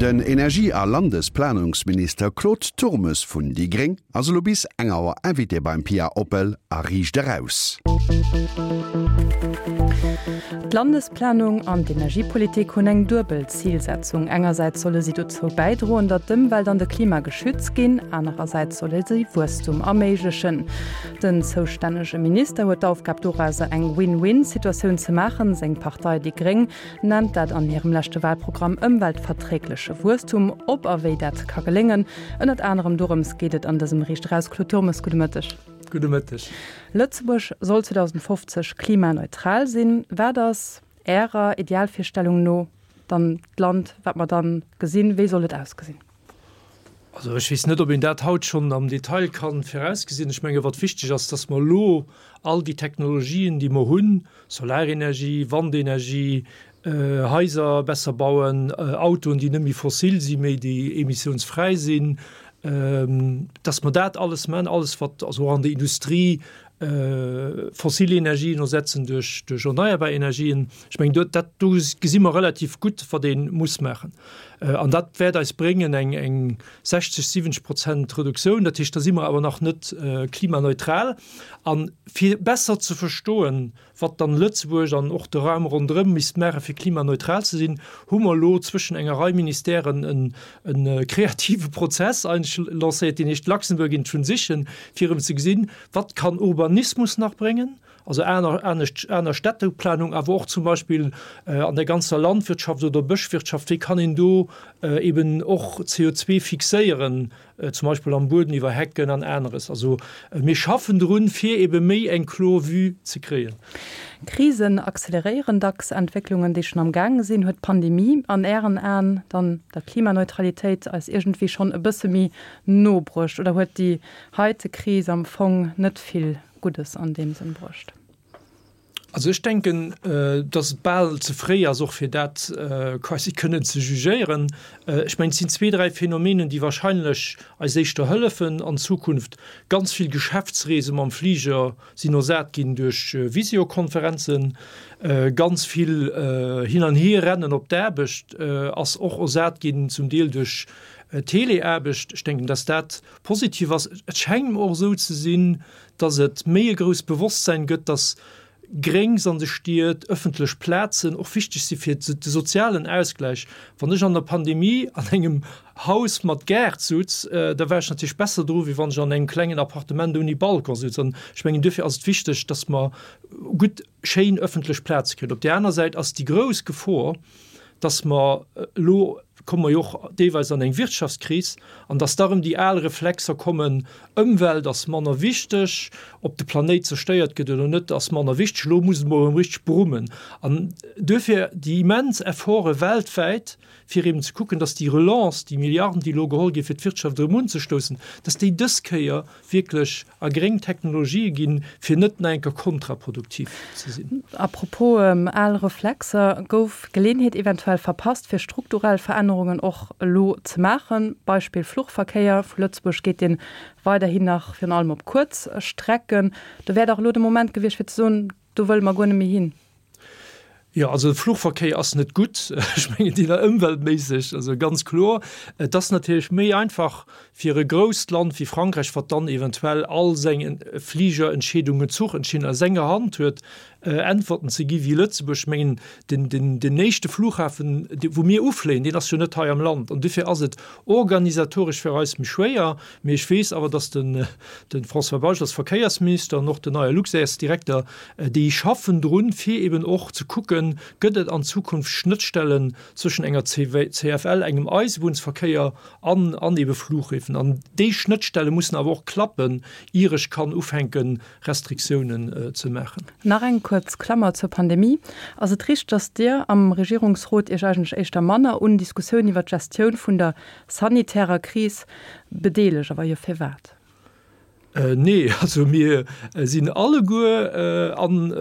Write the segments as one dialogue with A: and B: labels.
A: Den Energie a Landesplanungsminister Claude Turmes vun déi gréng ass elo bis eng Auer Invité beim Pia Oppel a Riicht Eraus.
B: D'Landesplanung an d'Energiepolitik hunn eng duebel Zilsetzung. Engersäits solle si dozou bäidroen, datt d'Ëmwelt an de Klima geschützt ginn, anerersäits solle si Wuesstum erméiglechen. Den zoustännege Minister huet d'Aufgab dorauser eng Win-Win-Situatioun ze maachen. Seng Partei déi gréng nennt dat an hirem leschte Wahlprogramm ëmweltverträgleche Wuesstum. Ob a wéi dat ka geléngen, ënnert anerem dorëms geet et an dësem Riicht Eraus. Claude Turmes, gudde Mëtteg.
C: Gudde Mëtteg.
B: Lëtzebuerg soll 2050 klimaneutral sinn. Wat ass Ärer Idealvirstellung no dann d'Land, wat mer dann gesinn? Wéi soll et ausgesinn?
C: Also ech weess net, ob een dat haut schonn am Detail ka virausgesinn. Ech menge wat wichteg ass, datt mer elo all déi Technologien, déi mer hunn, Solarenergie, Wandenergie, Haiser besser bauen, Autoen, déi net méi fossil sinn, mee déi emissiounsfräi sinn, datt mer dat alles maachen, alles wat also och an der Industrie fossil Energien ersetzen duerch duerch erneierbar Energien. Ech mengen do dat do gesi mer relativ gutt, wat ee muss maachen. An dat wäert eis bréngen eng eng 60, 70 Prozent Reduktioun. Dat heescht, da si mer awer nach net klimaneutral. A fir besser ze verstoen, wat dann Lëtzebuerg an och de Raum ronderëm misst maachen, fir klimaneutral ze sinn, hu mer elo zwëschen enger Rei Ministèren e kreative Prozess eigentlech lancéiert, deen heescht Luxembourg in Transition, fir erëm ze gesinn, wat kann Urbanismus nach bréngen, also aner, anescht, aner Städteplanung, awer och zum Beispill an der ganzer Landwirtschaft oder Bëschwirtschaft, wéi kann een do eben och CO2 fixéieren, zum Beispill am Bueden iwwer Hecken an aneres. Also mir schaffen drun, fir ebe méi eng kloer Vue ze kréien.
B: Krisen acceleréieren dacks Entwécklungen, déi schonn am Gaange sinn. Huet d'Pandemie an Ären Aen dann der Klimaneutralitéit eis iergendwéi schonn e bësse méi no bruecht oder huet déi heite Kris am Fong net vill Guddes an deem Sënn bruecht?
C: Also ech denken, dass et bal ze fréi ass och fir dat quasi kënnen ze jugéieren. Ech mengen, et sinn zwee, dräi Phänomenen, déi wahrscheinlech eis éischter hëllefen an Zukunft. Ganz vill Geschäftsreese mam Fliger sinn ersat ginn duerch Visiokonferenzen. Ganz vill Hin an Hierrennen op d'Aarbecht ass och ersat ginn zum Deel duerch Teleaarbecht. Ech denken, dass dat positiv ass. Et schengt mer och esou ze sinn, dass et méi e grousst Bewosstsein gëtt, dass Gréngs an de Stied, ëffentlech Plazen och wichteg si fir de sozialen Ausgläich. Wann ech an der Pandemie an engem Haus mat Gaart sutz, da war ech natierlech besser dru wéi wann ech an engem klengen Appartement ouni Balcon sutz. An ech mengen, duerfir ass et wichteg, dass mer gutt, schéin ëffentlech Plaze kréien. Op där aner Säit ass déi grouss Gefor, dass mer elo komme mer jo och deelweis an eng Wirtschaftskris, an dass da erëm déi al Reflexer kommen, Ëmwelt ass manner wichteg, ob de Planéit zerstéiert gëtt oder net ass manner wichteg, elo muss et mol erëm richteg brummen. An duerfir déi immens Efforte weltwäit, fir eben ze kucken, dass déi Relance, déi Milliarden, déi elo geholl ginn, fir d'Wirtschaft erëm unzestoussen, dass déi dës Kéier wierklech a gréng Technologië ginn, fir net nach eng Kéier kontraproduktiv ze sinn.
B: A propos al Reflexer, Gouf d'Geleeënheet eventuell verpasst, fir strukturell Verännerungen och elo ze maachen? Beispill Fluchverkéier, Vu Lëtzebuerg geet dee weiderhin nach virun allem op kuerz Strecken. Do wär dach elo de Moment gewiescht, fir ze soen, do wëlle mer guer net méi hin.
C: Jo, also de Fluchverkéier ass net gutt, ech mengen deen ëmweltméisseg, also ganz kloer. Et ass natierlech méi einfach fir e grousst Land wéi Frankräich, wat dann eventuell all seng Fligerentscheedungen, Zuchentscheedungen a senger Hand huet, Äntwerten ze gi wéi Lëtzebuerg. Ech mengen den, den, den éischte Flughafen, wou mir ufléien, deen ass jo net hei am Land an dofir ass et organisatoresch fir eis méi schwéier. Mee ech weess awer, datt den, de François Bausch als Verkéiersminister an och den neie Luxairs-Direkter, Déi schaffen drun, fir eben och ze kucken, gëtt et an Zukunft Schnëttstellen zwëschen enger CFL, engem Eisebunnsverkéier an an ebe Flughäfen. An déi Schnëttstelle mussen awer och klappen, ier ech kann ufänken, Restriktiounen ze maachen.
B: Nach eng kuerz Klammer zur Pandemie. Ass et richteg, datt Dir am Regierungsrot Iech eigentlech éischter manner un Diskussiounen iwwer d'Gestioun vun der sanitärer Kris bedeelegt? A wa jo, firwat?
C: Nee, also mir sinn alleguer an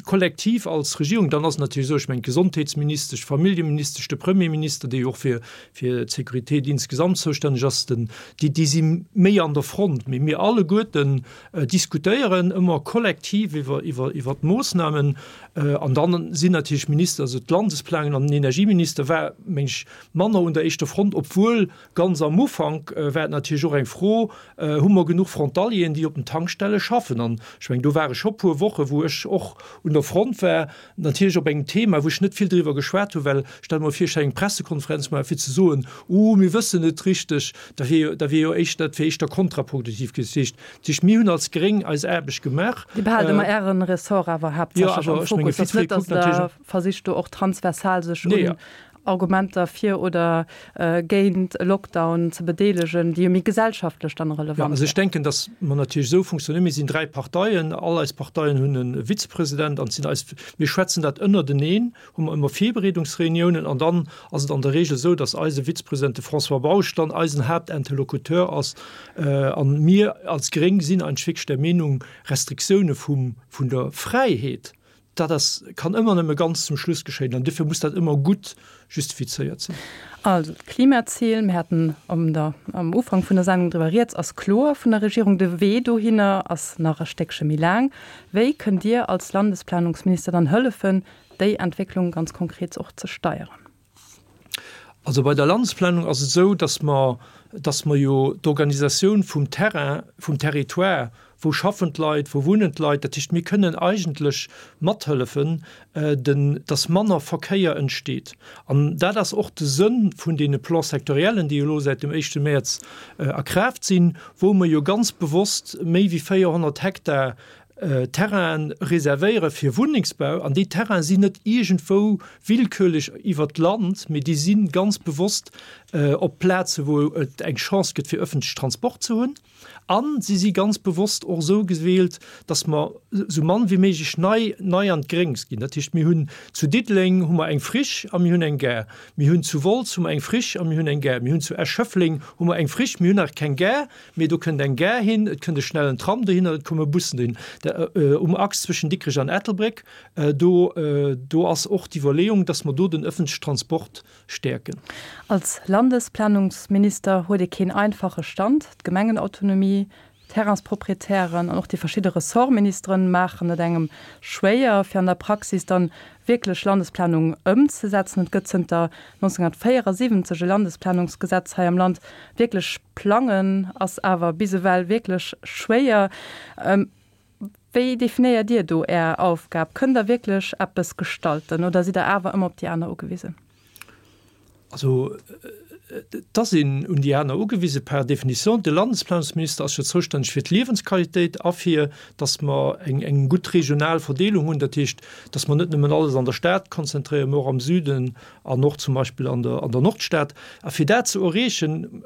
C: kollektiv als Regierung. Dann ass et natierlech esou, ech mengen d'Gesondheetsministesch, d'Familljeministesch, de Premierminister, dee jo och fir fir d'Sécurité insgesamt zoustänneg ass, den, déi, déi si méi an der Front. Mee mir alleguerten diskutéieren ëmmer kollektiv iwwer, iwwer, iwwer d'Moossnamen. An dann sinn natierlech Minister, also d'Landesplanung an den Energieminister war, meng ech, manner un der éischter Front, obwuel ganz am Ufank war et natierlech och eng Fro, Hu mer genuch Frontalieren, déi op den Tankstelle schaffen? An ech mengen, do ware scho puer Woche wou ech och un der Front war, natierlech op engem Thema, wou ech net vill driwwer geschwat hunn, well stell mer vir, ech hätt eng Pressekonferenz gemaach fir ze soen, Uh, mir wëssen net richteg, da wier jo, da wier jo éischter, dat wier éischter kontraproduktiv gewiescht. Dat heescht, dat heescht, mir hunn als Gréng eis Aarbecht gemaach.
B: Dir behaalt ëmmer Äre Ressort awer haaptsächlech am Fokus. Et ass net, datt Der versicht do och transversal sech un Argumenter fir oder géint e Lockdown ze bedeelegen, déi jo méi gesellschaftlech dann relevant
C: wären. Also ech denken, datt mer natierlech esou funktionéieren, mir sinn 3 Parteien, all eis Parteien hunn e Vizepresident an et sinn eis, mir schwätzen dat ënnerteneen, hu mer ëmmer Virbereedungsreuniounen an dann ass et an der Regel esou, datt eise Vizepresident, de François Bausch, dann eisen Haaptinterlocuteur ass. An mir als Gréng sinn eigentlech wierklech der Meenung, Restriktioune vum, vun der Fräiheet, Dat ass, kann ëmmer nëmme ganz zum Schluss geschéien an duerfir muss dat ëmmer gutt justifizéiert sinn.
B: Also d'Klimazil, mir haten am der, am Ufank vun der Sendung driwwer rieds, ass kloer vun der Regierung. De Wee dohinner ass nach e Stéckche méi laang. Wéi kënnt Dir als Landesplanungsminister dann hëllefen, déi Entwécklung ganz konkret och ze steieren?
C: Also bei der Landesplanung ass et esou, dass mer, dass mer jo d'Organisatioun vum Terrain, vum Territoire, wou schaffen d'Leit, wou wunnen d'Leit, dat heescht mir kënnen eigentlech mathëllefen, den, dass manner Verkéier entsteet. An dat ass och de Sënn vun deene Plans sectoriellen, déi elo säit dem éischte Mäerz a Kraaft sinn, wou mer jo ganz bewosst méi wéi 400 Hektar Terrainen reservéiere fir Wunnengsbau, an déi Terraine sinn net iergendwou willkürlech iwwert d'Land, mee déi si ganz bewosst op Plaze wou et eng Chance gëtt fir ëffentleche Transport ze hunn, a si si ganz bewosst och esou gewielt, datt mer esou mann wéi méiglech nei nei an d'Gréngs ginn. Dat heescht, mir hunn zu Diddeleng hu mer eng Friche a mir hunn eng Gare, mir hunn zu Wolz hu mer eng Friche a mir hunn eng Gare, mir hunn zu Esch-Schëffleng hu mer eng Friche, mir hunn nach keng Gare, Mee do kënnt eng Gare hin, et kënnt e schnellen Tram dohinner, et komme Bussen dohin. Um Achs zwëschen Dikrech an Ettelbréck, do, do ass och d'Iwwerleeung, dass mer do den ëffentlechen Transport stäerken.
B: Als Landesplanungsminister huet ee keen einfache Stand. D'Gemengenautonomie, d'Terrainsproprietären an och déi verschidde Ressortministeren maachen et engem schwéier, fir an der Praxis dann wierklech Landesplanung ëmzesetzen. Et gëtt zënter 1974 e Landesplanungsgesetz hei am Land. Wierklech plangen ass awer bis ewell wierklech schwéier. Wéi definéiert Dir do Är Aufgab? Kënnt Der wierklech eppes gestalten oder sidd Der awer ëmmer op déi aner ugewisen?
C: Also et ass een un déi aner ugewise par définition. De Landesplanungsminister ass jo zoustänneg fir d'Liewensqualitéit a fir, datt mer eng eng gutt regional Verdeelung hunn. Dat heescht, datt mer net nëmmen alles an der Stad konzentréieren, mä och am Süden an och zum Beispill an der an der Nordstad. A fir dat ze erreechen,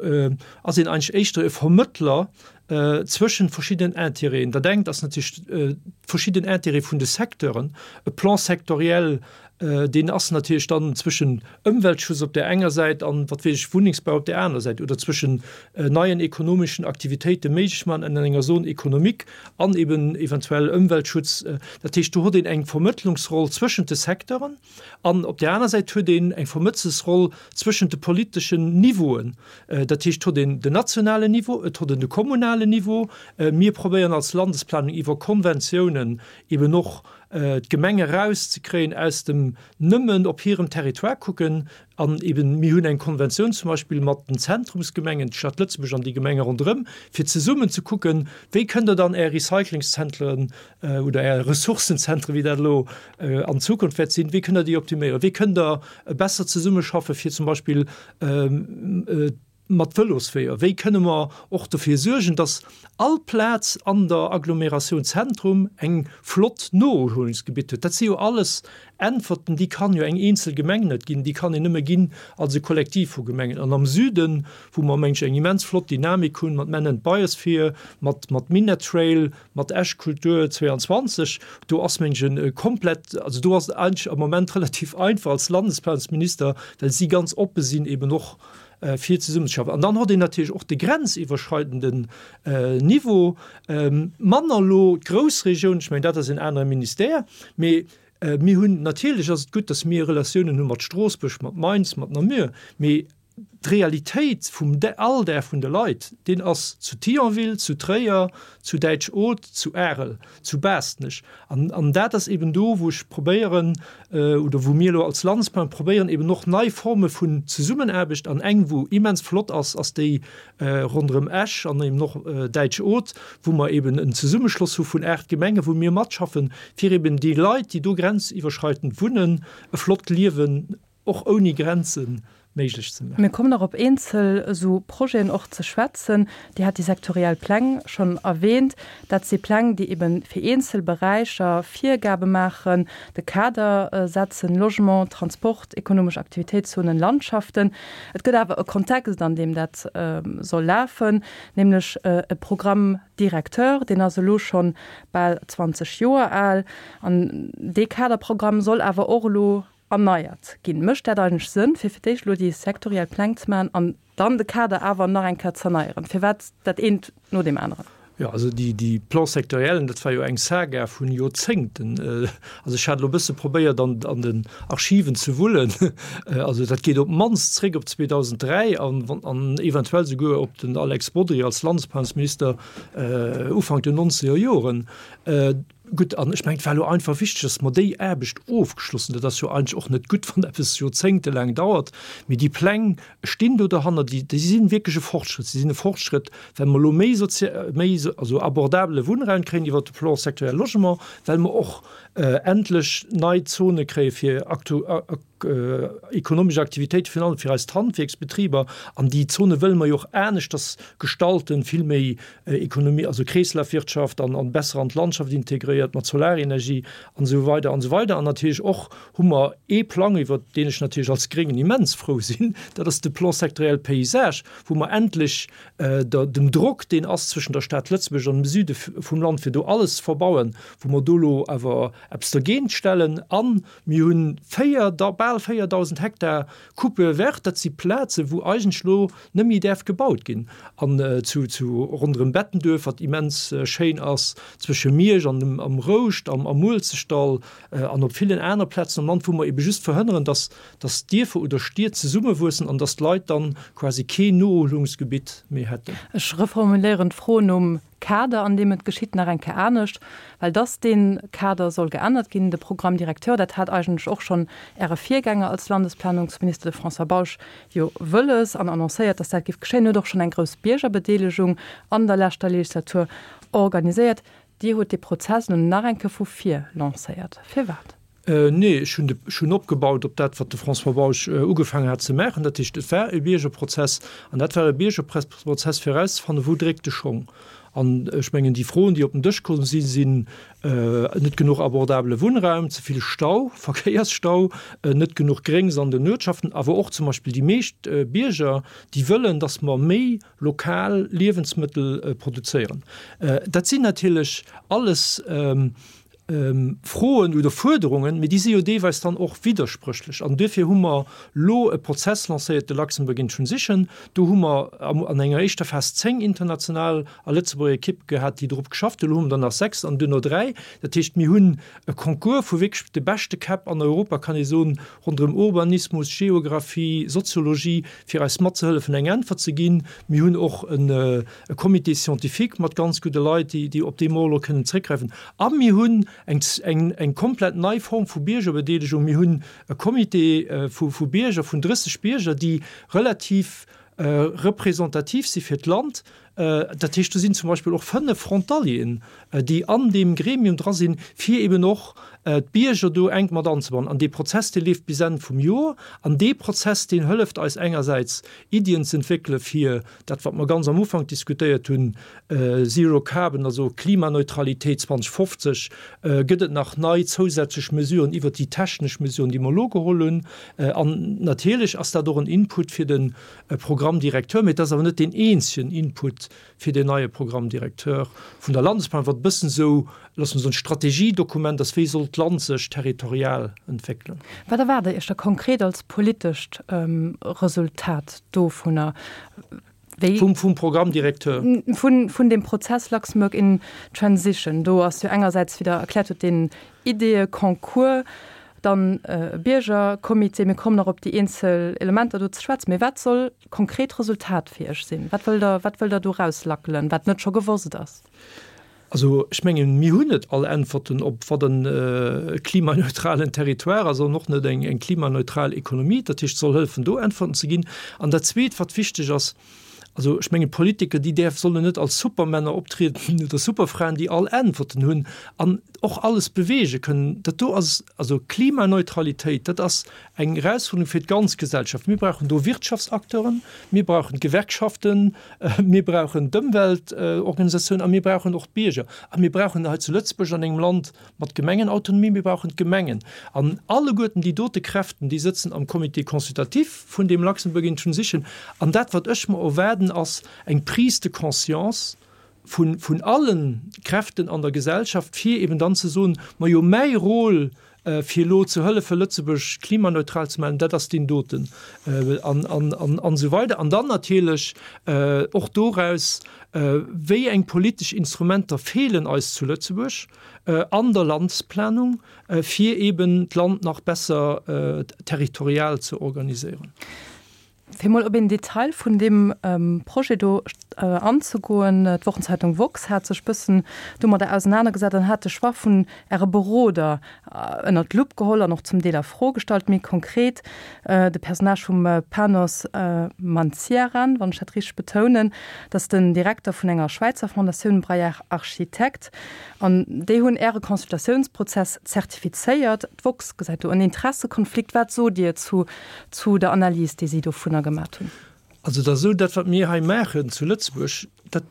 C: ass een eigentlech éischter e Vermëttler zwëschen verschiddenen Intérêten. Dat engt ass natierlech verschidden Intérêtë vun de Secteuren, e Plan sectoriel, deen ass natierlech dann zwëschen Ëmweltschutz op där enger Säit an, wat weess ech, Wunnengsbau op där anerer Säit oder zwëschen neien ekonomeschen Aktivitéite méiglech maachen an enger Zone économique an eben eventuell Ëmweltschutz. Dat heescht, do huet een eng Vermëttlungsroll zwëschent de Secteuren an op där aner Säit huet een eng Vermëtzelsroll zwëschent de politeschen Niveauen. Dat heescht, et huet een den nationalen Niveau, et huet een de kommunalen Niveau. Mir probéieren als Landesplanung iwwer Konventiounen eben och d'Gemenge erauszekréien aus dem nëmmen op hirem Territoire kucken an eben, mir hunn eng Konventioun zum Beispill mat den Zentrumsgemengen, d'Stad Lëtzebuerg an déi Gemenge ronderëm, fir zesummen ze kucken, wéi kënnt Der dann Är Recyclingszentren oder Är Ressourcenzentren, wéi dat elo an Zukunft wäert sinn, wéi kënnt Der déi optiméieren, wéi kënnt Der besser zesummeschaffe fir zum Beispill mat Vëlosweeër, wéi kënne mer och dofir suergen, dass all Plaz an der Agglomeratioun Zentrum eng flott Noerhuelungsgebitt huet? Dat si jo alles Äntwerten, déi kann jo eng eenzel Gemeng net ginn, déi kann een nëmme ginn als e Kollektiv vu Gemengen. An am Süden, wou mer, meng ech, eng immens flott Dynamik hunn mat Men and Biosphere, mat mat Minett Trail, mat Esch Kultur 22, do ass, meng ech, e komplett, also do ass et eigentlech am Moment relativ einfach als Landesplanungsminister, well si ganz oppe sinn eben och. fir zesummenzeschaffen. An dann hott een natierlech och de grenziwwerschreidenden Niveau, manner elo d'Groussregioun, ech mengen dat ass en anere Ministère, mee mir hunn, natierlech ass et gutt, datt mir Relatiounen hu mat Stroossbuerg, mat Mainz, mat Namur, mee d'Realitéit vum Alldag vun de Leit, deen ass zu Thionville, zu Tréier, zu Däitsch-Oth, zu Arel, zu Baastnech. An, an dat ass eben do, wou ech probéieren, oder wou mir elo als Landesplanung probéieren, eben och nei Forme vun Zesummenaarbecht, an eng, wou immens flott ass, ass déi ronderëm Esch an eben och Däitsch-Oth, wou mer eben en Zesummeschloss hu vun 8 Gemengen, wou mir matschaffen, fir eben déi Leit, déi do grenziwwerschreitend wunnen, e flott Liewen och ouni Grenzen méiglech ze maachen.
B: Mir kommen nach op eenzel esou Projeten och ze schwätzen. Dir hat déi sektoriell Pläng schonn erwähnt. Dat si Pläng, déi ebe fir eenzel Beräicher Virgabe maachen, de Kader setzen, Logement, Transport, ekonomesch Aktivitéitszonen, Landschaften. Et gëtt awer e Kontext, an deem dat soll lafen, nämlech e Programme directeur, deen ass elo scho bal 20 Joer al. An dee Kaderprogramm soll awer och elo erneiert ginn. Mécht dat eigentlech Sënn, fir fir d'éischt elo déi sektoriell Pläng ze maachen an dann de Kader awer nach eng Kéier z'erneieren? Firwat dat eent no deem aneren?
C: Jo, also déi, déi Plans sectoriellen, dat war jo eng Saga vun Joerzéngten. Also ech hat elo e bësse probéiert an, an den Archiven ze wullen. Also dat geet op d'mannst zréck op 2003 an, an eventuell souguer op den Alex Bodry als Landesplanungsminister Ufank den nonzeger Joren. Gutt, an ech mengen, et war elo einfach wichteg, dass mer déi Aarbecht ofgeschloss hunn. Dat ass jo eigentlech och net gutt, wann eppes joerzéngtelaang dauert. Mee déi Pläng stinn do derhanner, déi, déi si wierklech e Fortschrëtt. Si sinn e Fortschrëtt, well mer elo méi sozi-, méi, also abordabele Wunnraum kréien iwwert de Plan sectoriel Logement, well mer och endlech nei Zone kréie fir aktu-, Ekonomesch Aktivitéit, virun allem fir eis d'Handwierksbetriber, an déi Zone wëlle mer jo och aneschters gestalten, vill méi Ekonomie, also Kreeslafwirtschaft an an besser an d'Landschaft integréiert mat Solarenergie an esou weider an esou weider. An natierlech och hu mer ee Plang, iwwert deen ech natierlech als Gréngen immens frou sinn, dat ass de Plan sectoriel Paysage, wou mer endlech der dem Drock, deen ass zwëschen der Stad Lëtzebuerg an dem Süde vum Land, fir do alles ze verbauen, wou mer do elo awer eppes dergéint stellen an Mir hunn 4, bal 4.000 Hektar Coupe verte, dat si Plazen, wou eigentlech elo net méi däerf gebaut ginn. An zu, zu ronderëm Bettenduerf, wat immens schéin ass, zwësche Miersch an dem, am Rouscht, am, am Muelzechtdall an op villen aner Plazen am Land, wou mer ebe just verhënneren, dass, dass Dierfer oder Stied zesummewuessen an dass d'Leit dann quasi keen Noerhuelungsgebitt méi hätten.
B: Ech reformuléieren d'Fro nom Kader, an deem et geschitt, nach eng Kéier anescht, well dass dee Kader soll geännert ginn, de Programme directeur, dat hat eigentlech och schonn Äre Virgänger als Landesplanungsminister, de François Bausch, jo wëlles an annoncéiert, dass dat géif geschéien, huet och schonn eng grouss Biergerbedeelegung an der leschter Legislatur organiséiert. Dir hutt dee Prozess elo nach eng Kéier vu vir lancéiert. Firwat?
C: Nee, ech hunn de, ech hunn opgebaut op dat, wat de François Bausch ugefaangen hat ze maachen. Dat heescht, et war e Biergerprozess an dat war e Biergerprozess fir erauszefannen, wou dréckt de Schong. An ech mengen, déi Froen, déi op den Dësch komm sinn, sinn net genuch abordabele Wunnraum, ze vill Stau, Verkéiersstau, net genuch Gréngs an den Uertschaften, awer och zum Beispill déi meescht Bierger, déi wëllen, datt mer méi lokal Liewensmëttel produzéieren. Dat sinn natierlech alles Froen oder Fuerderungen, mee déi si jo deelweis dann och widderspréchlech. An duerfir hu mer elo e Prozess lancéiert, de Luxembourg in Transition. Do hu mer an enger éischter Phas 10 international a Lëtzebuerger Ekippe gehat, déi drop geschafft hunn. Elo hu mer der nach 6 an duerno 3. Dat heescht, mir hunn e Concours vu wierklech de beschte Käpp an Europa, kann ee soen, ronderëm Urbanismus, Geographie, Soziologie, fir eis matzehëllefen, eng Äntwert ze ginn. Mir hunn och e Comité scientifique mat ganz gudde Leit, déi op dee mer elo kënnen zréckgräifen. A mir hunn eng komplett nei Form vu Biergerbedeelegung. Mir hunn e Comité vu Bierger, vun 30 Bierger, déi relativ representativ si fir d'Land. Dat heescht, do sinn zum Beispill och 5 Frontalieren, déi an deem Gremium dra sinn, fir eben och d'Bierger do enk mat anzebannen. An dee Prozess, dee leeft bis Enn vum Joer. An dee Prozess, deen hëlleft eis engersäits, Iddien ze entwéckele fir dat, wat mer ganz am Ufank diskutéiert hunn, Zero Carbon, also Klimaneutralitéit 2050, gëtt et nach nei zousätzlech Mesuren iwwert déi technesch Mesuren, déi mer elo geholl hunn. An natierlech ass dat och en Input fir de Programme directeur, mee et ass awer net deen eenzegen Input fir deen neie Programme directeur vun der Landesplanung, wat e bëssen esou, loosse mer soen, Strategiedokument ass, wéi soll. d'Land sech territorial entwéckelen.
B: Wat erwaart Der Iech da konkret als politescht Resultat dovunner?
C: Wéi. Vum, vum Programme directeur?
B: Vun, vun deem Prozess Luxembourg in Transition. Do ass jo engersäits, wéi Der erkläert hutt, deen Ideeë-Concours, dann e Biergercomité. Mir kommen nach op déi eenzel Elementer do ze schwätzen. Mee wat soll d'konkret Resultat fir Iech sinn? Wat wëllt Der, wat wëllt Der do erauslackelen, wat net scho gewosst ass?
C: Also ech mengen, mir hunn net all Äntwerten op wat e klimaneutralen Territoire ass an och net eng klimaneutral Ekonomie. Dat heescht, et soll hëllefen do Äntwerten ze ginn. An dat Zweet, wat wichteg ass, also ech mengen, d'Politiker, déi däerf, sollen net als Supermänner optrieden oder Superfraen, déi all Äntwerten hunn an och alles beweege kënnen. Dat do ass, also Klimaneutralitéit, dat ass eng Erausfuerderung fir d'ganz Gesellschaft. Mir brauchen do Wirtschaftsacteuren, mir brauchen d'Gewerkschaften, mir brauchen d'Ëmweltorganisatiounen a mir brauchen och d'Bierger. A mir brauchen hei zu Lëtzebuerg, an engem Land mat Gemengenautonomie, mir brauchen d'Gemengen. An alleguerten déi dote Kräften, déi sëtzen am Comité consultatif vun deem Luxembourg in Transition. An dat, wat ech mer erwaarden, ass eng Prise de conscience vun, vun alle Kräften an der Gesellschaft, fir eben dann ze soen, Majo, mäi Rôle, fir elo ze hëllefen, Lëtzebuerg klimaneutral ze maachen, dat ass deen doten, an, an, an, an esou weider. An dann natierlech och doraus, Wéi eng politesch Instrumenter feelen eis zu Lëtzebuerg an der Landesplanung, fir eben d'Land nach besser territorial ze organiséieren?
B: Fir mol op een Detail vun deem Projet do anzegoen, D'Wochenzeitung woxx hat sech bëssen domadder ausenanergesat an hat de Choix vun Äre Beroder ënnert d'Lupp geholl an och zum Deel a Fro gestallt. Méi konkret de Personnage vum Panos Mantsiaran, wann ech dat richteg betounen, dat ass den Direkter vun enger Schwäizer Fondatioun, Braillard Architectes. An déi hunn Äre Consultatiounsprozess zertifizéiert. D'woxx gesäit do en Interessekonflikt. Wat sot Dir zu zu der Analys, déi si dovunner gemat hunn.
C: Also et ass esou, dat wat mir hei maachen zu Lëtzebuerg, dat,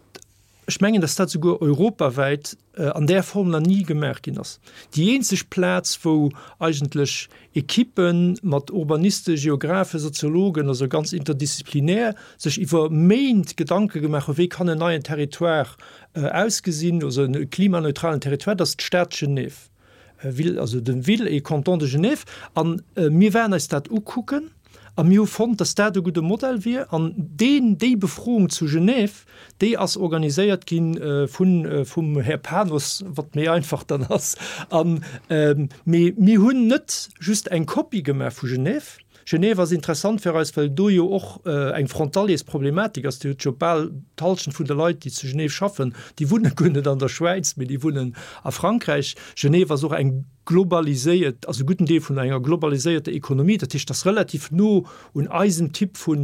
C: ech mengen, datt dat souguer europawäit an där Form nach ni gemaach ginn ass. Déi eenzeg Plaz, wou eigentlech Ekippe mat Urbanisten, Geographen, Soziologen, also ganz interdisziplinär, sech iwwer Méint Gedanke gemaach hunn, wéi kann en neien Territoire ausgesinn, also e klimaneutralen Territoire, dat ass d'Stad Genève. Ville, also de Ville et Canton de Genève, an mir waren eis dat ukucken a mir hu fonnt, dass dat e gudde Modell wier. An deen, déi Befroung zu Genève, déi ass organiséiert gi vun, vum Här Panos, wat méi einfach dann ass. An, mee mir hunn net just eng Kopie gemaach vu Genève, Genève ass interessant fir eis, well do jo och eng Frontaliers-Problematik ass. Dir hutt jo bal d'Halschent vun de Leit, déi zu Genève schaffen, déi wunne guer net an der Schwäiz, mee déi wunnen a Frankräich. Genève ass och eng globaliséiert, also e gudden Deel vun enger globaliséierter Ekonomie. Dat heescht, dat ass relativ no un eisem Typ vu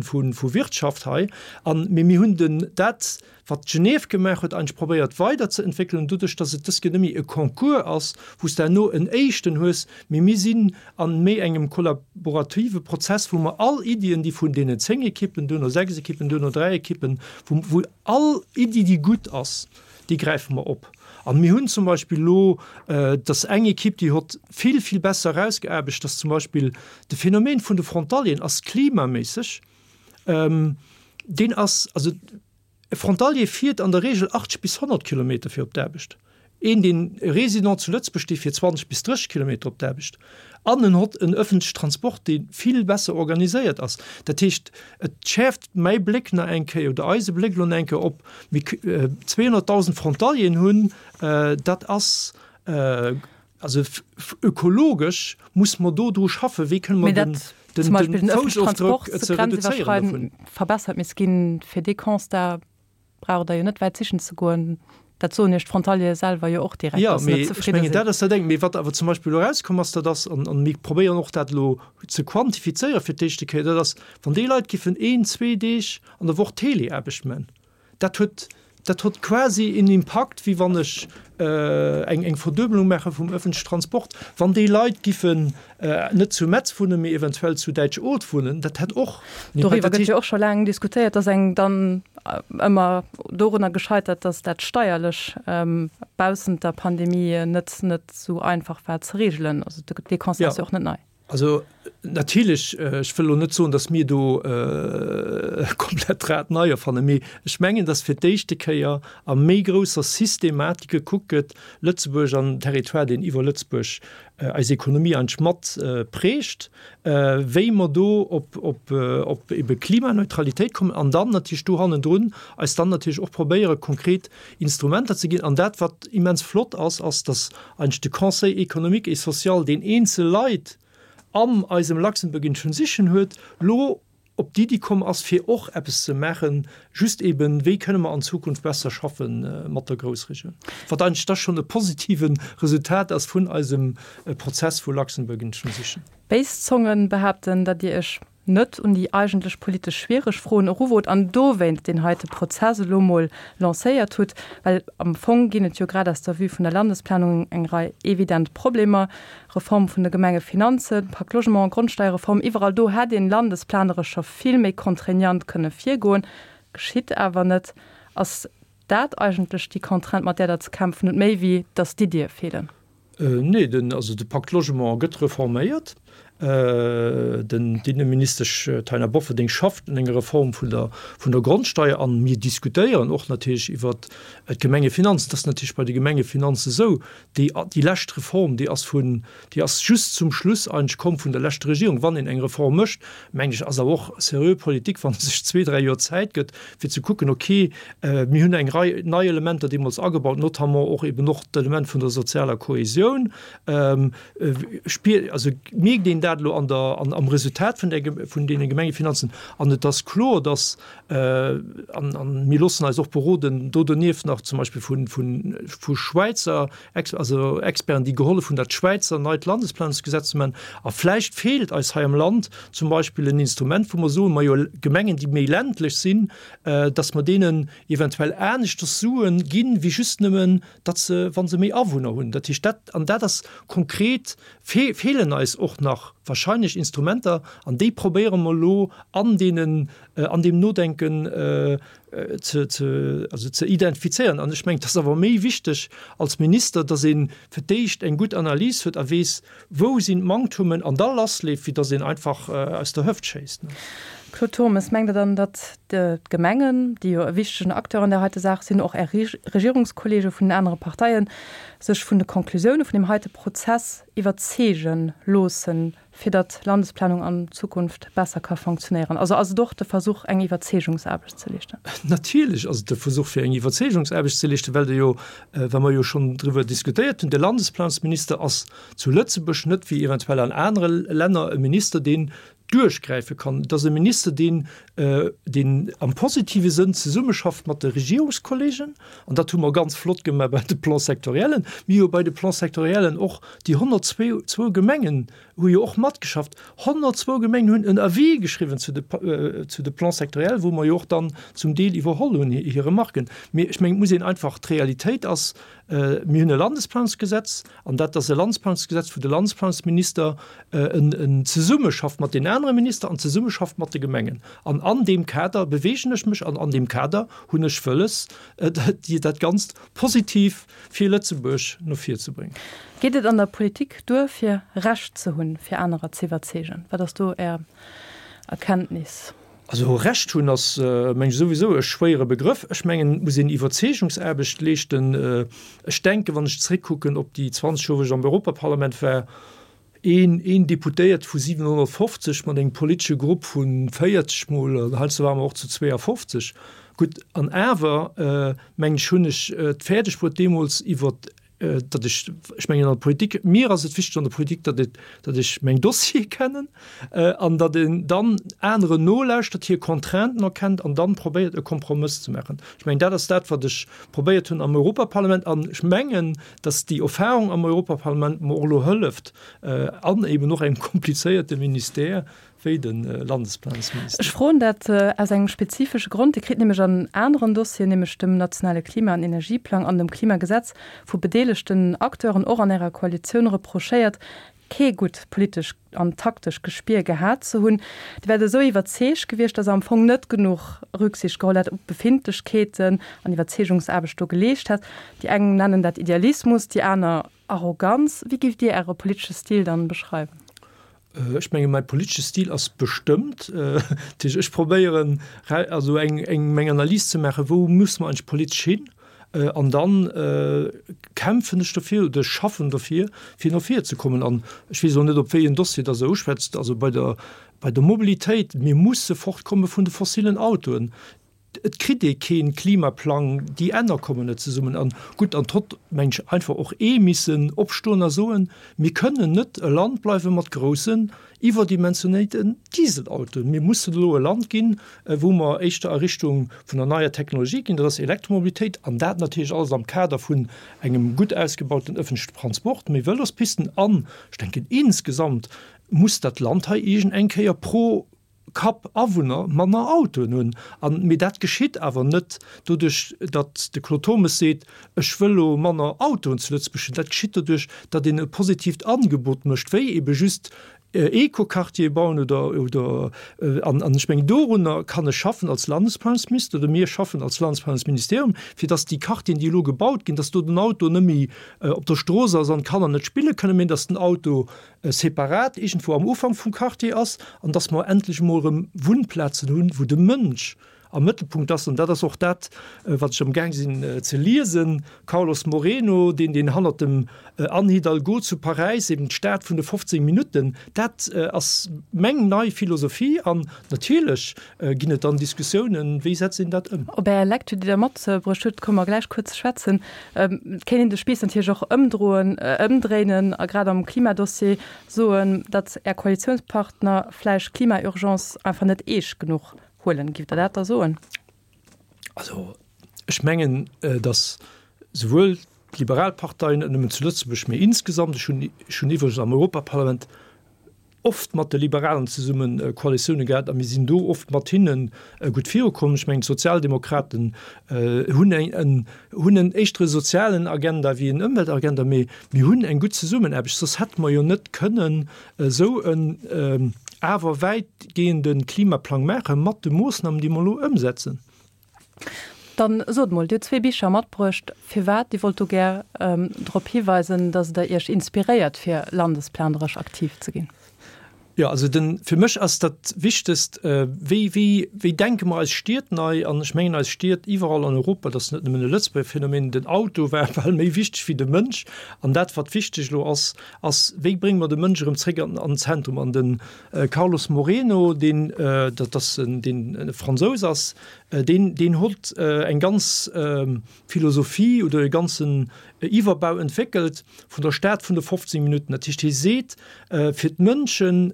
C: Wirtschaft hei. An, mee mir hunn den, dat, wat Genève gemaach huet, eigentlech probéiert weiderzeentwéckelen, doduerch datt et dës Kéier net méi e Concours ass, wou s de herno en éischten hues, mee mir sinn a méi engem kollaborative Prozess, wou mer all Iddien, déi vun deenen 10 Ekippen, duerno 6 Ekippen, duerno 3 Ekippen, wou wou all Iddi, déi gutt ass, déi gräife mer op. A mir hunn zum Beispill elo, dass eng Ekipp, déi hott vill, vill besser erausgeaarbecht, dass zum Beispill de Phänomen vun de Frontalieren ass klimaméisseg, deen ass, also E Frontalier fiert an der Reegel 80 bis 100 Kilometer fir op d'Aarbecht. Een, deen e Résident zu Lëtzebuerg, dee fiert 20 bis 30 Kilometer op d'Aarbecht. An en hott en ëffentleche Transport, dee vill besser organiséiert ass. Dat heescht, et schäerft mäi Bléck nach eng Kéier oder eise Bléck elo nach eng Kéier op mir 200.000 Frontalieren hunn. Dat ass also ökologesch muss mer do dru schaffen, wéi kënne mer den
B: den Foussofdrock ze reduzéieren dovun. Verbessert misst ginn. Fir dee Constat braucht Der jo net wäit sichen ze goen. Dat soen Iech d'Frontaliere selwer jo och direkt,
C: dass se net zefridde sinn. Jo, mee ech mengen, dat ass dat eng. Mee wat awer zum Beispill elo erauskomm ass, dat ass, an mir probéieren och dat elo ze quantifizéieren fir d'éischte Kéier, dat ass, wann déi Leit giffen een, zwee Deeg an der Woch Teleaarbecht man, Dat huet, dat huet quasi een Impakt, wéi wann ech eng, eng Verduebelung maache vum öffentlichen Transport. Wann déi Leit giffen net zu Metz wunnen, mee eventuell zu Däitsch-Oth wunnen, dat hätt och
B: en Impakt. Doriwwer gëtt jo och scho laang diskutéiert. Et ass engem dann ëmmer dorunner gescheitert, datt dat steierlech baussent der Pandemie net, net esou einfach war ze regelen. Also dee Constat ass jo och net nei.
C: Also. Natierlech, ech wëll elo net soen, datt mir do komplett d'Rad nei erfannen, mee ech mengen, datt fir d'éischte Kéier a méi grousser Systematik gekuckt gëtt, Lëtzebuerg an den Territoire, deen iwwer Lëtzebuerg eis Ekonomie eigentlech mat prägt, wéi mer do op, op, op ebe Klimaneutralitéit kommen an dann natierlech do hannendrun eis dann natierlech och probéiere konkret Instrumenter ze ginn. An dat, wat immens flott ass, ass, datt eigentlech de Conseil économique et social, deen eenzel Leit an eisem Luxembourg in Transition huet, lo op d'Iddi komm ass, fir och eppes ze maachen, just eben, wéi kënne mer an Zukunft besser schaffe mat der Groussregioun, wat eigentlech da schonn e positive Resultat ass vun eisem Prozess vu Luxembourg in Transition.
B: Béis Zongen behaapten, datt Dir Iech net un déi eigentlech politesch schwiereg Froen eruwot an dowéinst deen heite Prozess elo mol lancéiert hutt, well am Fong ginn et jo grad aus der Vue vun der Landesplanung eng Rei evident Problemer, Reform vun de Gemengefinanzen, Pacte Logement, Grondsteierreform, iwwerall do hätt een landesplaneresch scho vill méi contraignant kënne virgoen, geschitt awer net. Ass dat eigentlech déi Contrainte, mat där Der ze kämpfen hutt, méi wéi datt d'Iddie feelen?
C: Nee, den, also de Pacte Logement gëtt reforméiert. Den, d'Inneministesch Taina Bofferding schafft un enger Reform vun der, vun der Grondsteier an mir diskutéieren och natierlech iwwert d'Gemengefinanzen. Et ass natierlech bei de Gemengefinanze esou, déi, déi lescht Reform, déi ass vun, déi ass just zum Schluss eigentlech komm vun der leschter Regierung. Wann een eng Reform mécht, mengen ech, ass awer och seriö Politik, wann ee sech zwee, dräi Joer Zäit gëtt, fir ze kucken, okay, mir hunn eng Rei nei Elementer deemools agebaut, notamment och eben och d'Element vun der sozialer Kohesioun. Spier, also mierkt een dat elo an der, an am Resultat vun der, vun deene Gemengefinanzen. An et ass kloer, dass, an, an mir loossen eis och beroden do donieft nach zum Beispill vun, vun, vu Schwäizer Ex, also Experten, déi gehollef hunn, dat Schwäizer neit Landesplanungsgesetz ze maachen. A vläicht feelt eis hei am Land zum Beispill en Instrument, wou mer soen, majo, Gemengen, déi méi ländlech sinn, dass mer deenen eventuell aneschters Sue ginn, wéi just nëmmen, datt se, wa se méi Awunner hunn. Dat heescht, dat, an dat ass konkret, fe, feelen eis och nach wahrscheinlech Instrumenter, an déi probéiere mer elo an deenen, an deem Nodenken ze, ze, also ze identifizéieren. An ech mengen, et ass awer méi wichteg als Minister, datt ee fir d'éischt eng gutt Analys huet a weess, wou sinn d'Manktummen, an da lassleeft, wéi datt een einfach aus der Hëft schéisst.
B: Claude Turmes, Mengt Der dann, datt d'Gemengen, déi jo e wichtegen Acteur an där heite Saach sinn, och Är Regierungskollege vun den anere Parteien, sech vun de Konklusioune vun deem heite Prozess iwwerzeege loossen, fir datt d'Landesplanung an Zukunft besser ka fonctionnéieren? Also ass et och de Versuch, eng Iwwerzeegungsaarbecht ze leeschten?
C: Natierlech ass et de Versuch, fir eng Iwwerzeegungsaarbecht ze leeschten, well de jo, well mer jo schonn driwwer diskutéiert hunn, de Landesplanungsminister ass zu Lëtzebuerg net wéi eventuell an anere Länner e Minister, deen duerchgräife kann. Et ass e Minister, deen, deen am positive Sënn zesummeschafft mat de Regierungskollegen, an dat hu mer ganz flott gemaach bei de Plans-sectoriellen. Mir hu bei de Plans-sectoriellen och déi 102 Gemengen hu jo och matgeschafft. 102 Gemengen hunn en Avis geschriwwen zu de, zu de Plans sectoriels, wou mer jo och dann zum Deel iwwerholl hunn hir Remarken. Mee ech mengen, et muss een einfach, d'Realitéit ass, mir hunn e Landesplanungsgesetz, an dat ass e Landesplanungsgesetz, wou de Landesplanungsminister en zesummeschafft mat den anere Minister an zesummeschafft mat de Gemengen. An an deem Kader beweegen ech mech an an deem Kader hunn ech wëlles, dat Ganzt positiv fir Lëtzebuerg no vir ze bréngen.
B: Geet et an der Politik duer, fir Recht ze hunn, fir anerer ze iwwerzeegen? Wat ass do Är Erkenntnis?
C: Also Recht hunn ass, meng ech, souwisou e schwéiere Begrëff. Ech mengen, et muss een Iwwerzeegungsaarbecht leeschten. Ech denken, wann ech zréckkucken op déi 20 Joer, wou ech am Europaparlament war, een, een Deputéiert vu 750 mat engem politesche Grupp vu 40 mol, an heiansdo ware mer och zu 52, gutt, an awer, mengen ech, hunn ech et fäerdeg bruet deemools iwwer datt ech, ech mengen an der Politik, mir ass et wichteg an der Politik, datt et, datt ech meng Dossiere kennen an datt een dann aneren nolauschtert, hir Contrainten erkennt an dann probéiert e Kompromëss ze maachen. Ech mengen dat ass dat wat ech probéiert hunn am Europaparlament an ech mengen, datt déi Erfahrung am Europaparlament mer och elo hëlleft an eben och engem komplizéierte Ministère, wéi de Landesplanungsminister.
B: Ech froen dat aus engem spezifesche Grond. Dir kritt nämlech an aneren Dossieren, nämlech dem nationale Klima an Energieplang an dem Klimagesetz, vu bedeelegten Acteuren, och an Ärer Koalitioun, reprochéiert, kee gutt politesch an taktesch Gespier gehat ze hunn. Dir wäert esou iwwerzeegt gewiescht, datt Der am Fong net genuch Rücksicht geholl hätt op d'Befindlechkeeten an Iwwerzeegungsaarbecht do geleescht hätt. Déi eng nennen dat Idealismus, déi aner Arroganz. Wéi giff Dir Äre politesche Stil dann beschreiwen?
C: Ech menge mäi politesche Stil ass bestëmmt. Dat heescht, ech probéieren also eng eng meng Analys ze maachen, wou muss mer eigentlech politesch hin? An dann kämpfen ech dofir oder ech schaffen dofir, fir no vir ze kommen. An ech weess elo net, op wéi en Dossier dass Der uschwätzt. Also bei der bei der Mobilitéit, mir musse fortkomme vun de fossilen Autoen. Et kritt ee kee Klimaplang, déi Enner kommen net zesummen. An gutt, an d'hott, meng ech, einfach och ee missen opstoen a soen, Mir kënnen net e Land bleiwe mat groussen, iwwerdimensionéiten Dieselautoen. Mir mussen elo e Land ginn, wou mer éischter a Richtung vun der neier Technologie ginn, dat ass Elektromobilitéit, an dat natierlech alles am Kader vun engem gutt ausgebauten ëffentlechen Transport, méi Vëlospisten an, ech denken, insgesamt muss dat Land hei iergend eng Kéier pro Kapp Awunner manner Autoen hunn. An, mee dat geschitt awer net doduerch, datt de Claude Turmes seet, ech wëll elo manner Autoen zu Lëtzebuerg hunn. Dat geschitt doduerch, datt een e positiivt Angebot mécht, wéi ebe just Eco-Quartiere bauen oder, oder, an, an ech mengen, dorunner kann ech schaffen als Landesplanungsminister oder mir schaffen als Landesplanungsministerium, fir datt déi Quartieren, déi elo gebaut ginn, datt do den Auto net méi op der Strooss ass an d'Kanner net spille kënnen, mee datt den Auto separat iergendwou am Ufank vum Quartier ass an dass mer endlech emol erëm Wunnplazen hunn, wou de Mënsch am Mëttelpunkt ass. An dat ass och dat, wat ech amgaang sinn ze liesen, Carlos Moreno, deen, deen hannert dem Anne Hidalgo zu Paräis eben d'Stad vun de 15 Minutten, dat ass meng nei Philosophie. An natierlech ginn et dann Diskussiounen, wéi setzt een dat ëm.
B: Op Är Lecture, déi Der matbruecht hutt, komme mer gläich kuerz ze schwätzen. Et kéint een de Spiiss natierlech och ëmdroen, ëmdréinen a grad am Klimadossier soen, datt Är Koalitiounspartner vläicht d'Klima-Urgence einfach net eescht genuch huelen. Giff Der dat da soen?
C: Also ech mengen, datt souwuel d'liberal Parteien, net nëmmen zu Lëtzebuerg, mee insgesamt, ech hunn, ech hunn iwwregens am Europaparlament oft mat de Liberalen zesumme Koalitioune gehat a mir sinn do oft mat hinne gutt virukomm. Ech mengen, d'Sozialdemokraten hunn eng, en, hunn en éischtere sozialen Agenda wéi en Ëmweltagenda, mee mir hunn eng gutt Zesummenaarbecht, soss hätte mer jo net kënnen esou en awer wäitgehende Klimaplang maache mat de Moossnamen, déi mer elo ëmsetzen.
B: Dann sot mol, Dir hutt zwee Bicher matbruecht. Firwat? Dir wollt do gär drop hiweisen, datt Der Iech inspiréiert, fir landesplaneresch aktiv ze ginn.
C: Jo, also den, fir mech ass dat Wichtegst, wéi, wéi, wéi denke mer eis Stied nei? An ech mengen, eis Stied iwwerall an Europa, dat ass net nëmmen e Lëtzebuerger Phänomen, den Auto war bal méi wichteg wéi de Mënsch. An dat, wat wichteg elo ass, ass, wéi brénge mer de Mënsch erëm zréck an, an den Zentrum? An de Carlos Moreno, deen, dat ass en, deen e Fransous ass, Deen, deen hott eng ganz Philosophie oder e ganzen Iwwerbau entwéckelt vun der Stad vun de 15 Minutten. Dat heescht, hie seet, fir d'Mënschen,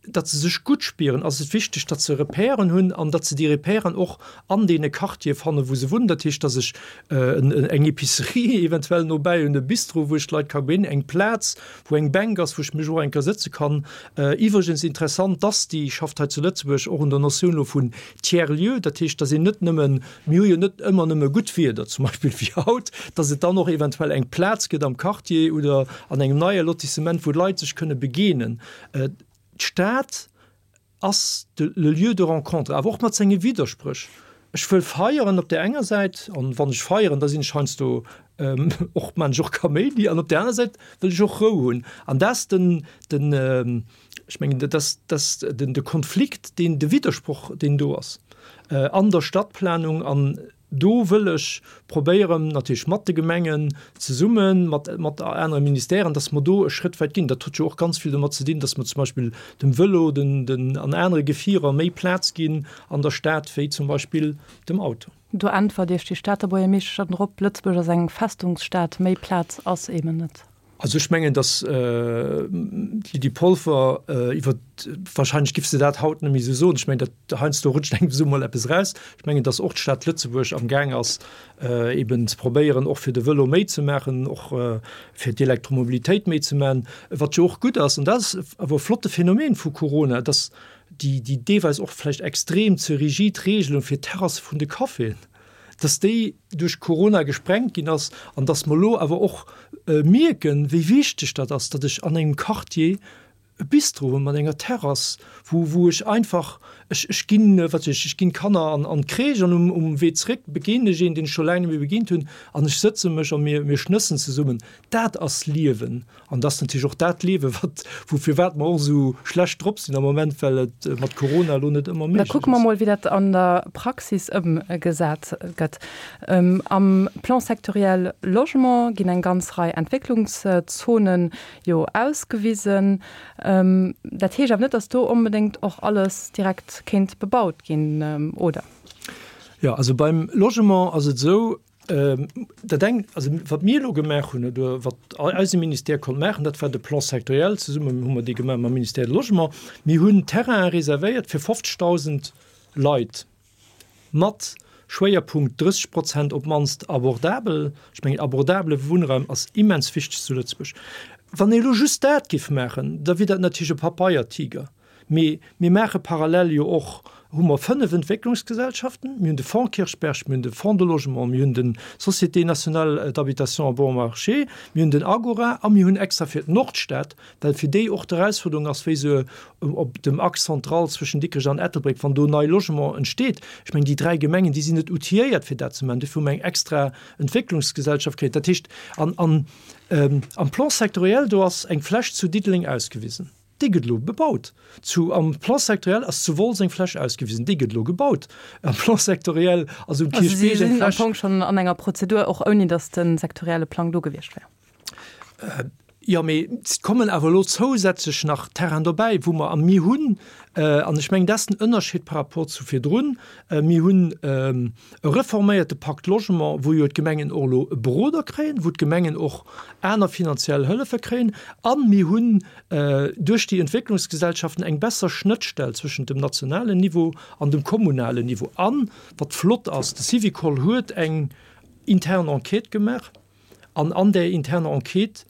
C: datt se sech gutt spieren, ass et wichteg, datt se Repèren hunn an datt se déi Repèren och an deene Quartiere fannen, wou se wunnen. Dat heescht, datt ech eng Epicerie eventuell nobäi hunn, e Bistro, wou ech d'Leit ka begéinen, eng Plaz, wou eng Bänk ass, wou ech mech och eng Kéier sëtze kann. Iwwregens interessant, d'ASTI schafft hei zu Lëtzebuerg och un der Notioun elo vun Tiers-lieu, dat heescht, dass een net nëmmen, mir hu jo net ëmmer nëmme gutt Wieder, zum Beispill wéi haut, dass et dann och eventuell eng Plaz gëtt am Quartier oder an engem neie Lotissement, wou d'Leit sech kënne begeenen. D'Stad ass de le lieu de rencontre, awer och mat senge Widderspréch. Ech wëll feieren op där enger Säit, an wann ech feieren, da sinn ech heiansdo och, maan ech och Kaméidi, an op där aner Säit wëll ech och Rou hunn. An dat ass den, den, Ech mengen, dat ass, dat ass den, de Konflikt, deen, de Widdersproch, deen do ass an der Stadtplanung. An do wëll ech probéieren, natierlech mat de Gemengen zesummen, mat, mat anere Ministèren, dass mer do e Schrëtt wäit ginn. Dat huet jo och ganz vill domat ze dinn, dass mer zum Beispill dem Vëlo, den, den, an anere Gefierer méi Plaz ginn an der Stad wéi zum Beispill dem Auto.
B: Do äntwert Iech déi Stater Buergermeeschtesch dann drop, Lëtzebuerg ass eng Festungsstad, méi Plaz ass eben net.
C: Also ech mengen, datt d'Lydie Polfer iwwer, wahrscheinlech giff se dat haut net méi esou soen, ech mengen, dat heiansdo rutscht engem esou mol eppes eraus, ech mengen, datt och d'Stad Lëtzebuerg am Gaang ass eben ze probéieren, och fir de Vëlo méi ze maachen, och fir d'Elektromobilitéit méi ze maachen, wat jo och gutt ass. An dat ass awer e flotte Phänomen vu Corona, datt déi déi deelweis och vläicht extrem ze rigid Regelung fir d'Terrasse vun de Caféen, dass déi duerch Corona gesprengt ginn ass an dass mer elo awer och mierken, wéi wichteg dat ass, datt ech an engem Quartier e Bistro hunn mat enger Terrass, wou wou ech einfach. Ech, ech ginn, wat weess ech, ech ginn d'Kanner an, an d'Crèche an um, um Wee zréck begéinen ech een, deen ech scho laang net méi begéint hunn an ech sëtze mech a mir, mir schnëssen zesummen. Dat ass Liewen. An dat ass natierlech och dat Liewen, wat, wou, firwat mer och esou schlecht drop sinn am Moment, well et mat Corona elo net ëmmer
B: Da
C: méiglech
B: kucke mer
C: ass.
B: mol, wéi dat an der Praxis ëmgesat gëtt. Am Plan sectoriel Logement ginn eng ganz Rei Entwécklungszonen jo ausgewisen. Dat heescht awer net, datt do onbedéngt och alles direkt kéint bebaut ginn, oder?
C: Jo, also beim Logement ass et esou, Dat eng, also wat mir elo gemaach hunn oder wat eise Ministère konnt maachen, dat war de Plan sectoriel. Zesummen hu mer dee gemaach mam Ministère du Logement. Mir hunn Terrainen reservéiert fir 50.000 Leit mat Schwéierpunkt 30 Prozent op d'mannst abordabel. Ech mengen, abordabele Wunnraum ass immens wichteg zu Lëtzebuerg. Wann ee elo just dat géif maachen, da wier dat natierlech e Papeiertiger. Mee mir maache parallel jo och, hu mer 5 Entwécklungsgesellschaften, mir hunn de Fonds Kirchberg, mir hunn de Fonds de Logement, mir hunn de Société nationale d'habitation à bon marché, mir hunn den Agora a mir hunn extra fir d'Nordstad, well fir déi och d'Erausfuerderung ass, wéi se op dem Axe central zwëschen Dikrech an Ettelbréck, wann do nei Logement entsteet, ech mengen déi dräi Gemengen, déi sinn net outilléiert fir dat ze maachen, dofir hu mer eng extra Entwécklungsgesellschaft kritt. Dat heescht, an am Plan sectoriel, do ass eng Fläch zu Diddeleng ausgewisen. Déi gëtt elo bebaut. Zu am Plan sectoriel ass zu Wolz eng Fläch ausgewisen, déi gëtt elo gebaut. Am Plan sectoriel ass um
B: Also si
C: Kierchbierg eng
B: sinn am
C: Fläch.
B: Fong schonn an enger Prozedur, och ouni datt de sektorielle Plang do gewiescht wär.
C: Jo, mee et kommen awer elo zousätzlech nach Terrainen dobäi, wou mer, a mir hunn, an ech mengen, dat ass den Ënnerscheed par rapport zu virdrun, mir hunn e reforméierte Pacte Logement, wou jo d'Gemengen och elo e Beroder kréien, wou d'Gemengen och aner finanziell Hëllefe kréien, a mir hunn duerch déi Entwécklungsgesellschaften eng besser Schnëttstell zwëschent dem nationalen Niveau an dem kommunalen Niveau. An, wat flott ass, de Syvicol huet eng intern Enquête gemaach an an där interner Enquête,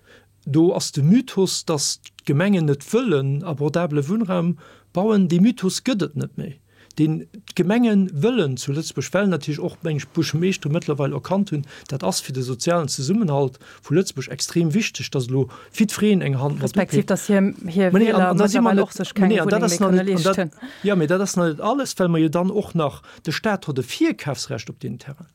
C: do ass de Mythos, dass d'Gemengen net wëllen abordabele Wunnraum bauen, dee Mythos gëtt et net méi. deen d'Gemenge wëllen zu Lëtzebuerg, well natierlech och, meng ech, d'Buergermeeschtere mëttlerweil erkannt hunn, dat ass fir de sozialen Zesummenhalt vu Lëtzebuerg extrem wichteg, dass elo jiddwereen eng Hand mat
B: Respektiv,
C: upeekt.
B: dass hir, hir
C: Mä nee, an,
B: Wieler
C: an da si mer
B: mëttlerweil
C: net,
B: och sech
C: mä
B: keng
C: nee, an dat
B: Wunneng
C: ass
B: méi
C: nach
B: kënne
C: net, an dat,
B: leeschten.
C: jo, mä dat ass nach net alles, well mer jo dann och nach, de Stat huet e Virkafsrecht op deenen Terrainen.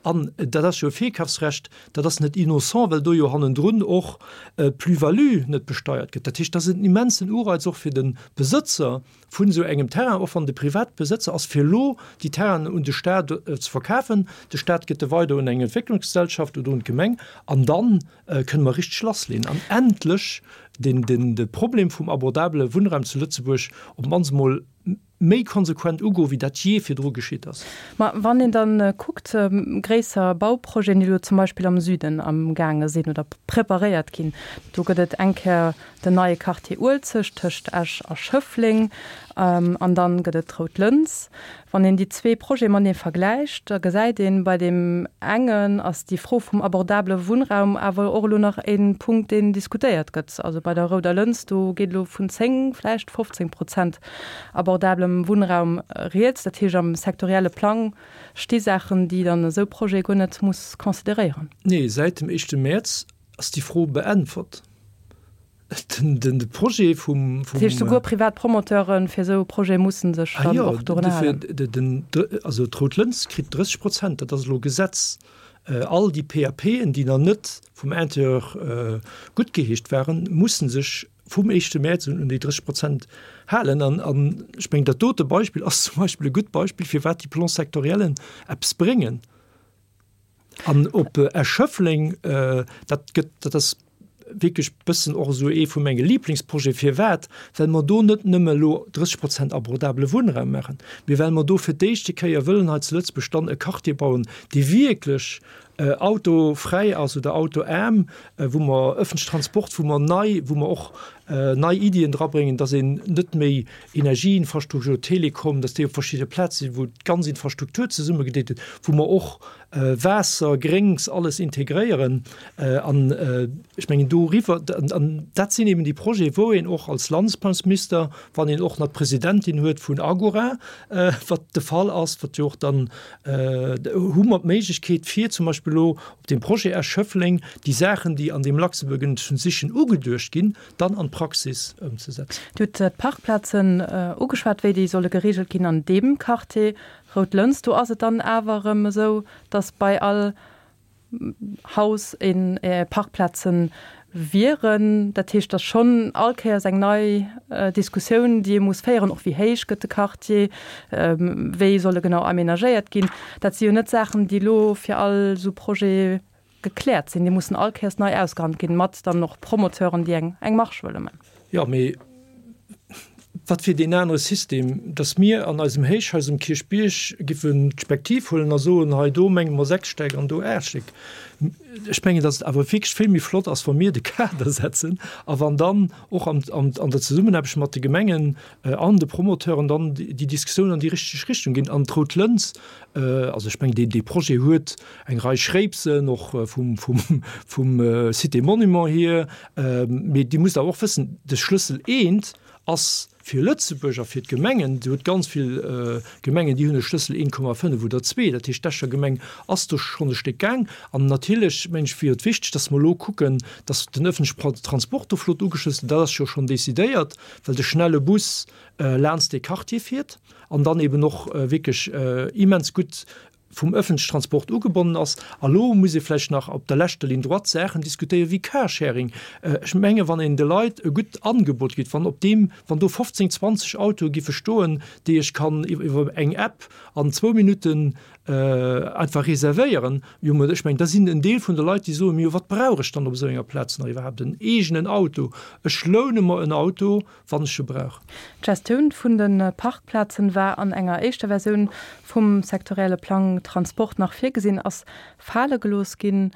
C: An dat ass jo e Virkafsrecht, dat ass net innocent, well do jo hannendrun och d'Plus-value net besteiert gëtt. Dat heescht, dat ass en immensen Ureiz och fir de Besëtzer vun esou engem Terrain, och wann de Privatbesëtzer ass, fir elo déi Terrainen un de Stat ze verkafen. De Stat gëtt e weider un eng Entwécklungsgesellschaft oder un d'Gemeng an da kënne mer richteg lassleeën an endlech de Problem vum abordabele Wunnraum zu Lëtzebuerg op d'mannst emol méi konsequent ugoen, wéi dat jee virdru geschitt ass.
B: Ma wann een da kuckt, gréisser Bauprojeten, déi elo zum Beispill am Süden amgaange sinn oder preparéiert ginn, do gëtt et eng Kéier den neie Quartier Uelzecht tëscht Esch a Schëffleng an dann gëtt et d'Rout Lëns. Wann een déi zwee Projete matenee vergläicht, da gesäit een, bei deem engen ass déi Fro vum abordabele Wunnraum awer och elo nach e Punkt, deen diskutéiert gëtt. Also bei der Rouder Lëns, do geet elo vun 10, vläicht 15 Prozent abordabelem Wunnraum rieds. Dat heescht, am sektorielle Plang sti Saachen, déi dann esou Projete guer net muss consideréieren.
C: Nee, säit dem éischte Mäerz ass déi Fro beäntwert. Den de Projet vum.
B: Dat heescht, souguer privat Promoteure fir esou e Projet musse sech dann och dorun halen?
C: Ah jo, also d'Rout Lëns kritt 30 Prozent, dat ass elo Gesetz. All déi PAPen, déi nach net vum Intérieur guttgeheescht waren, musse sech vum éischte Mäerz un un déi 30 Prozent halen. An ech mengen, dat dote Beispill ass zum Beispill e gutt Beispill, firwat déi Plans sectoriellen eppes bréngen. An op Esch-Schëffleng, dat gëtt, dat ass wierklech bëssen och esou ee vu menge Liblingsprojete. Firwat? Well mer do net nëmme elo 30 Prozent abordabele Wunnraum maachen, mee well mer do fir d'éischte Kéier wëllen hei zu Lëtzebuerg dann e Quartier bauen, dee wierklech autofräi ass oder autoaarm, wou mer ëffentlechen Transport, wou mer nei, wou mer och nei Iddien drabréngen, dass een net méi Energieinfrastruktur, Telekom, dass déi op verschidde Plaze sinn, wou d'ganz Infrastruktur zesummegedeet gëtt, wou mer och Waasser, Gréngs, alles integréieren. An ech mengen doriwwer, an dat sinn eben déi Projete wou een och als Landesplanungsminister, wann een och nach d'Presidentin huet vun Agora, wat de Fall ass, wat jo och dann, hu mer d'Méiglechkeet fir zum Beispill elo op deem Projet Esch-Schëffleng déi Saachen, déi an deem Luxembourg Transition ugeduecht ginn, dann an d'Praxis. d'Praxis ëmzesetzen.
B: Dir hutt d'Parkplazen ugeschwat, wéi déi solle gereegelt ginn an deem Quartier Rout Lëns. Do ass et dann awer erëm esou, datt bei all Haus een Parkplazen wieren. Dat heescht, et ass schonn all Kéiers eng nei Diskussioun, déi ee muss féieren, och wéi héich gëtt de Quartier, wéi soll e genau aménagéiert ginn. Dat si jo net Saachen, déi elo fir all esou Projet gekläert sinn. Déi mussen all Kéiers nei ausgehandelt ginn, mat dann och Promoteuren, déi eng eng Marge wëlle man.
C: Jo, mee wat wier deen anere System, dass mir an eisem Héichhaus um Kierchbierg giffen d'Spektiv huelen a soen, hei do menge mer 6 Stäck an do 8 Stéck. Ech mengen, dass et awer wierklech vill méi flott ass, wa mir de Kader setzen a wann dann och an an der Zesummenaarbecht mat de Gemengen an de Promoteuren dann déi Diskussioun an déi richteg Richtung ginn. An d'Rout Lëns, also ech mengen, deen dee Projet huet eng Rei Schréipsen, och vum vum vum Cité Monument hier, mee Dir musst awer och wëssen, de Schlëssel eent ass fir Lëtzebuerg a fir d'Gemengen, Dir hutt ganz vill Gemengen, déi hunn e Schlëssel 1,5 oder 2, dat heescht d'Escher Gemeng ass do schonn e Stéck gaang. An natierlech, meng ech, wier et wichteg, datt mer elo kucken, datt den ëffentleche Transport do flott ugeschlossen, dat ass jo schonn decidéiert, well de schnelle Bus laanst dee Quartier fiert an dann eben och wierklech immens gutt vum ëffentlechen Transport ugebonnen ass. A lo muss ee vläicht nach op der leschter Ligne droite Saachen diskutéieren wéi Carsharing. Ech menge wann een de Leit e gutt Angebot gitt, wann op deem, wann do 15, 20 Autoe giffe stoen, déi ech kann iwwer eng App an zwou Minutten einfach reservéieren, jo mä ech mengen da sinn en Deel vun de Leit déi soen, jo wat brauch ech dann op esou enger Plaz nach iwwerhaapt en eegenen Auto, ech loune mer en Auto wann ech e brauch.
B: D'Gestioun vun de Parkplazen war an enger éischter Versioun vum sektorielle Plang Transport nach virgesinn, ass fale gelooss ginn.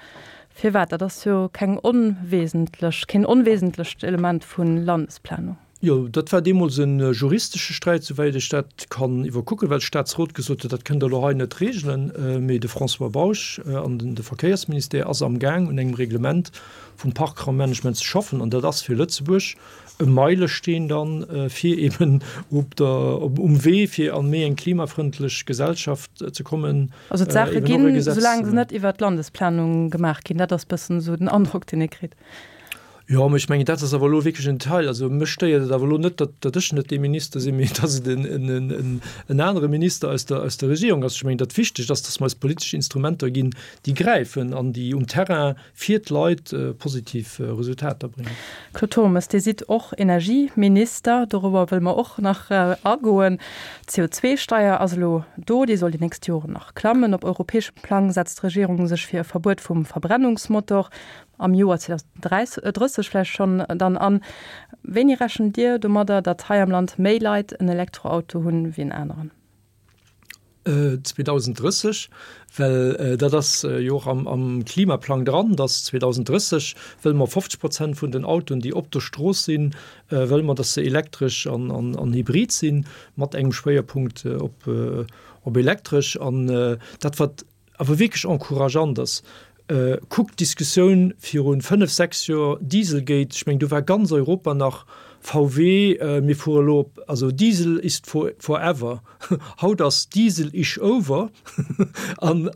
B: Firwat? Dat ass jo keng onwesentlech, keen onwesentlecht Element vu Landesplanung.
C: Jo, dat war deemools e juristesche Sträit, souwäit ech dat kann iwwerkucken, well de Staatsrot gesot huet, dat kënnt Der elo hei net regelen. Mee de François Bausch an de Verkéiersministère ass amgaang un engem Reglement vum Parkraummanagement ze schaffen an dat ass fir Lëtzebuerg e Meilesteen dann, fir eben op der, um Wee fir an méi eng klimafrëndlech Gesellschaft ze kommen.
B: Also d'Saache ginn, soulaang se net iwwert d'Landesplanung gemaach ginn. Dat ass bëssen esou den Androck, deen ee kritt.
C: Jo, mä ech mengen, dat ass awer elo wierklech en Detail. Also mech stéiert et awer elo net, datt, datt ech net dee Minister sinn, mee datt et en, en, en, en anere Minister aus der, aus der Regierung ass. Ech mengen, dat Wichtegt ass, datt mer eis politesch Instrumenter ginn, déi gräifen an déi um Terrain fir d'Leit positiv Resultater bréngen.
B: Claude Turmes, Dir sidd och Energieminister, dorobber wëlle mer och nach agoen. D'CO2-Steier ass elo do, déi soll déi nächst Joren nach klammen. Op europäeschem Plang setzt d'Regierung sech fir e Verbuet vum Verbrennungsmotor am Joer 2030 vläicht schonn dann an. Wéini rechent Dir domadder, datt hei am Land méi Leit en Elektroauto hunn wéi en aneren?
C: 2030, well dat ass jo och am Klimaplang dran, dass 2030 wëlle mer 50 Prozent vun den Autoen, déi op der Strooss sinn, wëlle mer, dass se elektresch an hybrid sinn, mat engem Schwéierpunkt op elektresch. An dat, wat awer wierklech encourageant ass, kuckt d'Diskussioun viru 5, 6 Joer, Dieselgate, ech mengen do war ganz Europa nach VW, mir fuere elo op, also Diesel ist forever, haut ass Diesel isch over an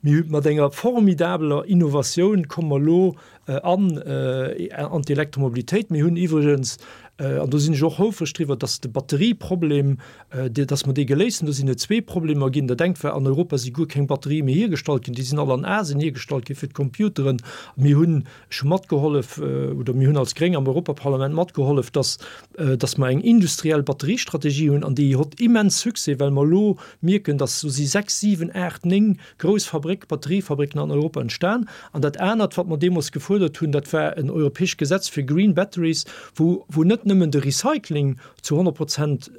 C: mir hu mat enger formidabeler Innovatioun komme mer elo an an d'Elektromobilitéit. Mir hunn iwwregens, an do sinn ech och houfreg driwwer, dass de Batterieproblem, dass mer dee geléist hunn. Do sinn et zwee Problemer ginn. Dat engt war, an Europa si guer keng Batterië méi hiergestallt ginn. Déi sinn all an Asien hiergestallt gi fir d'Computeren. Mir hunn, ech hu matgehollef, oder mir hunn als Gréng am Europaparlament matgehollef, dass, dass mer eng industriell Batteriestrategie hunn. An déi hott immens Succès, well mer elo mierken, dass do si sechs, siwen, aacht, néng grouss Fabréck, Batteriefabricken an Europa entstan. An dat anert, wat mer deemools gefuerdert hunn, dat war en europäescht Gesetz fir Green Batteries, wou, wou net nëmmen de Recycling zu 100 Prozent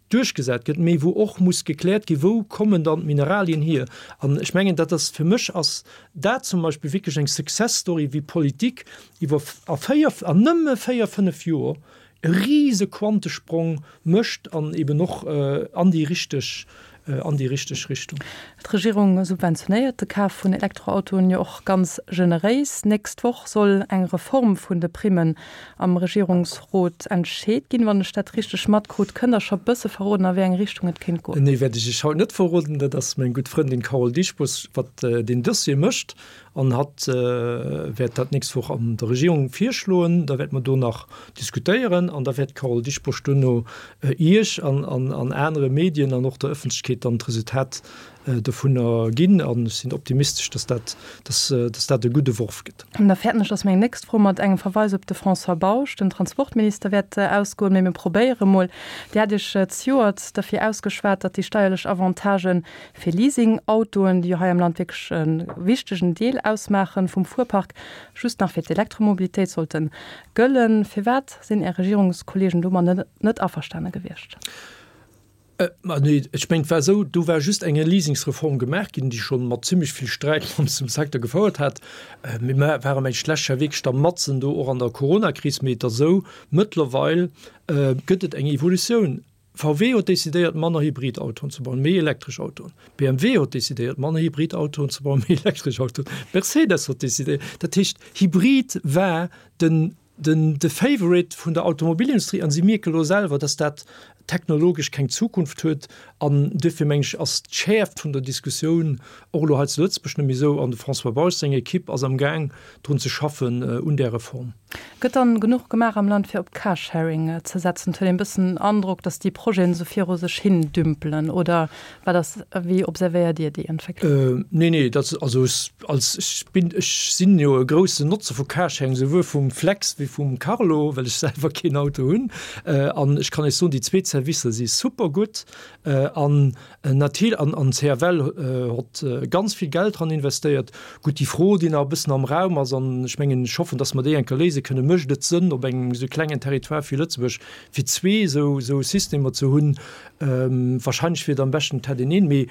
C: duerchgesat gëtt, mee wou och muss gekläert ginn, wou kommen dann d'Mineralien hier. An ech mengen, dat ass, fir mech ass dat zum Beispill wierklech eng Success Story, wéi Politik iwwer a véier, an nëmme véier, fënnef Joer e rise Quantesprong mécht an eben och an déi richteg. an déi richteg Richtung.
B: D'Regierung subventionéiert de Kaf vun Elektroautoen jo och ganz generéis. Nächst Woch soll eng Reform vun de Primmen am Regierungsrot entscheet ginn. Wann ech dat richteg matkrut, kënnt Der scho bësse verroden, a wéi eng Richtung et kéint goen?
C: Nee, wäert ech Iech haut net verroden. Dat ass meng gutt Frëndin Carole Dieschbourg, wat deen Dossier mécht. An hatt wäert dat d'nächst Woch an der Regierung virschloen. Da wäerte mer do nach diskutéieren an da wäert d'Carole Dieschbourg duerno Iech an anere Medien an och der Ëffentlechkeet dann d'Resultat dovunner ginn. An ech sinn optimistesch, dass dat, dass dat e gudde Worf gëtt.
B: An da fäerten ech, dass meng nächst Fro mat engem Verweis op de François Bausch, den Transportminister, wäert ausgoen. Mee mir probéiere mol. Dir hat Iech zejoert derfir ausgeschwat, datt déi steierlech Avantagen Fir Leasing-Autoen, déi jo hei am Land wierklech e wichtegen Deel ausmaache vum Fuerpark, just nach fir d'Elektromobilitéit sollte gëllen. Firwat sinn Är Regierungskolleegen domat net averstane gewiescht?
C: Ma nee, ech mengen, et war esou, do war just eng Leasingsreform gemaach ginn, déi scho mat zimlech vill Sträit mat dem Secteur gefouert hat. Mir ware mengen ech d'lescht Joer wierklech da matzen do och an der Coronakris. Mee et ass esou, mëttlerweil gëtt et eng Evolutioun. VW huet decidéiert, manner Hybridautoen ze bauen, méi elektresch Autoen. BMW huet decidéiert, manner Hybridautoen ze bauen, méi elektresch Autoen. Mercedes huet decidéiert. Dat heescht, Hybrid war den, den, de Favorite vun der Automobilindustrie an si mierke elo selwer, dass dat technologesch keng Zukunft huet. An duerfir, meng ech, ass d'Schäerft vun der Diskussioun och elo hei zu Lëtzebuerg net méi esou. An de François Bausch seng Equipe ass amgaang, drun ze schaffen un där Reform.
B: Gëtt dann genuch gemaach am Land fir op Carsharing ze setzen? Et huet een e bëssen den Androck, datt déi Projeten esou viru sech hin dümpelen, oder wat ass, wéi observéiert Dir déi Entwécklung?
C: Nee, nee, dat, also ech als, ech bin, ech sinn jo e groussen Notzer vu Carsharing, souwuel vum Flex wéi vum Carlo, well ech selwer keen Auto hunn. An ech kann Iech soen, déi zweet Servicer si super gutt an Natierl an an CFL hott ganz vill Geld dran investéiert. Gutt, déi Fro, déi nach e bëssen am Raum ass, an ech mengen, ech hoffen, datt mer déi eng Kéier léise kënnen, Mécht et Sënn, op engem esou klengen Territoire wéi Lëtzebuerg, fir zwee esou esou Systemer ze hunn? Wahrscheinlech wier et am beschten, et hätt een een. Mee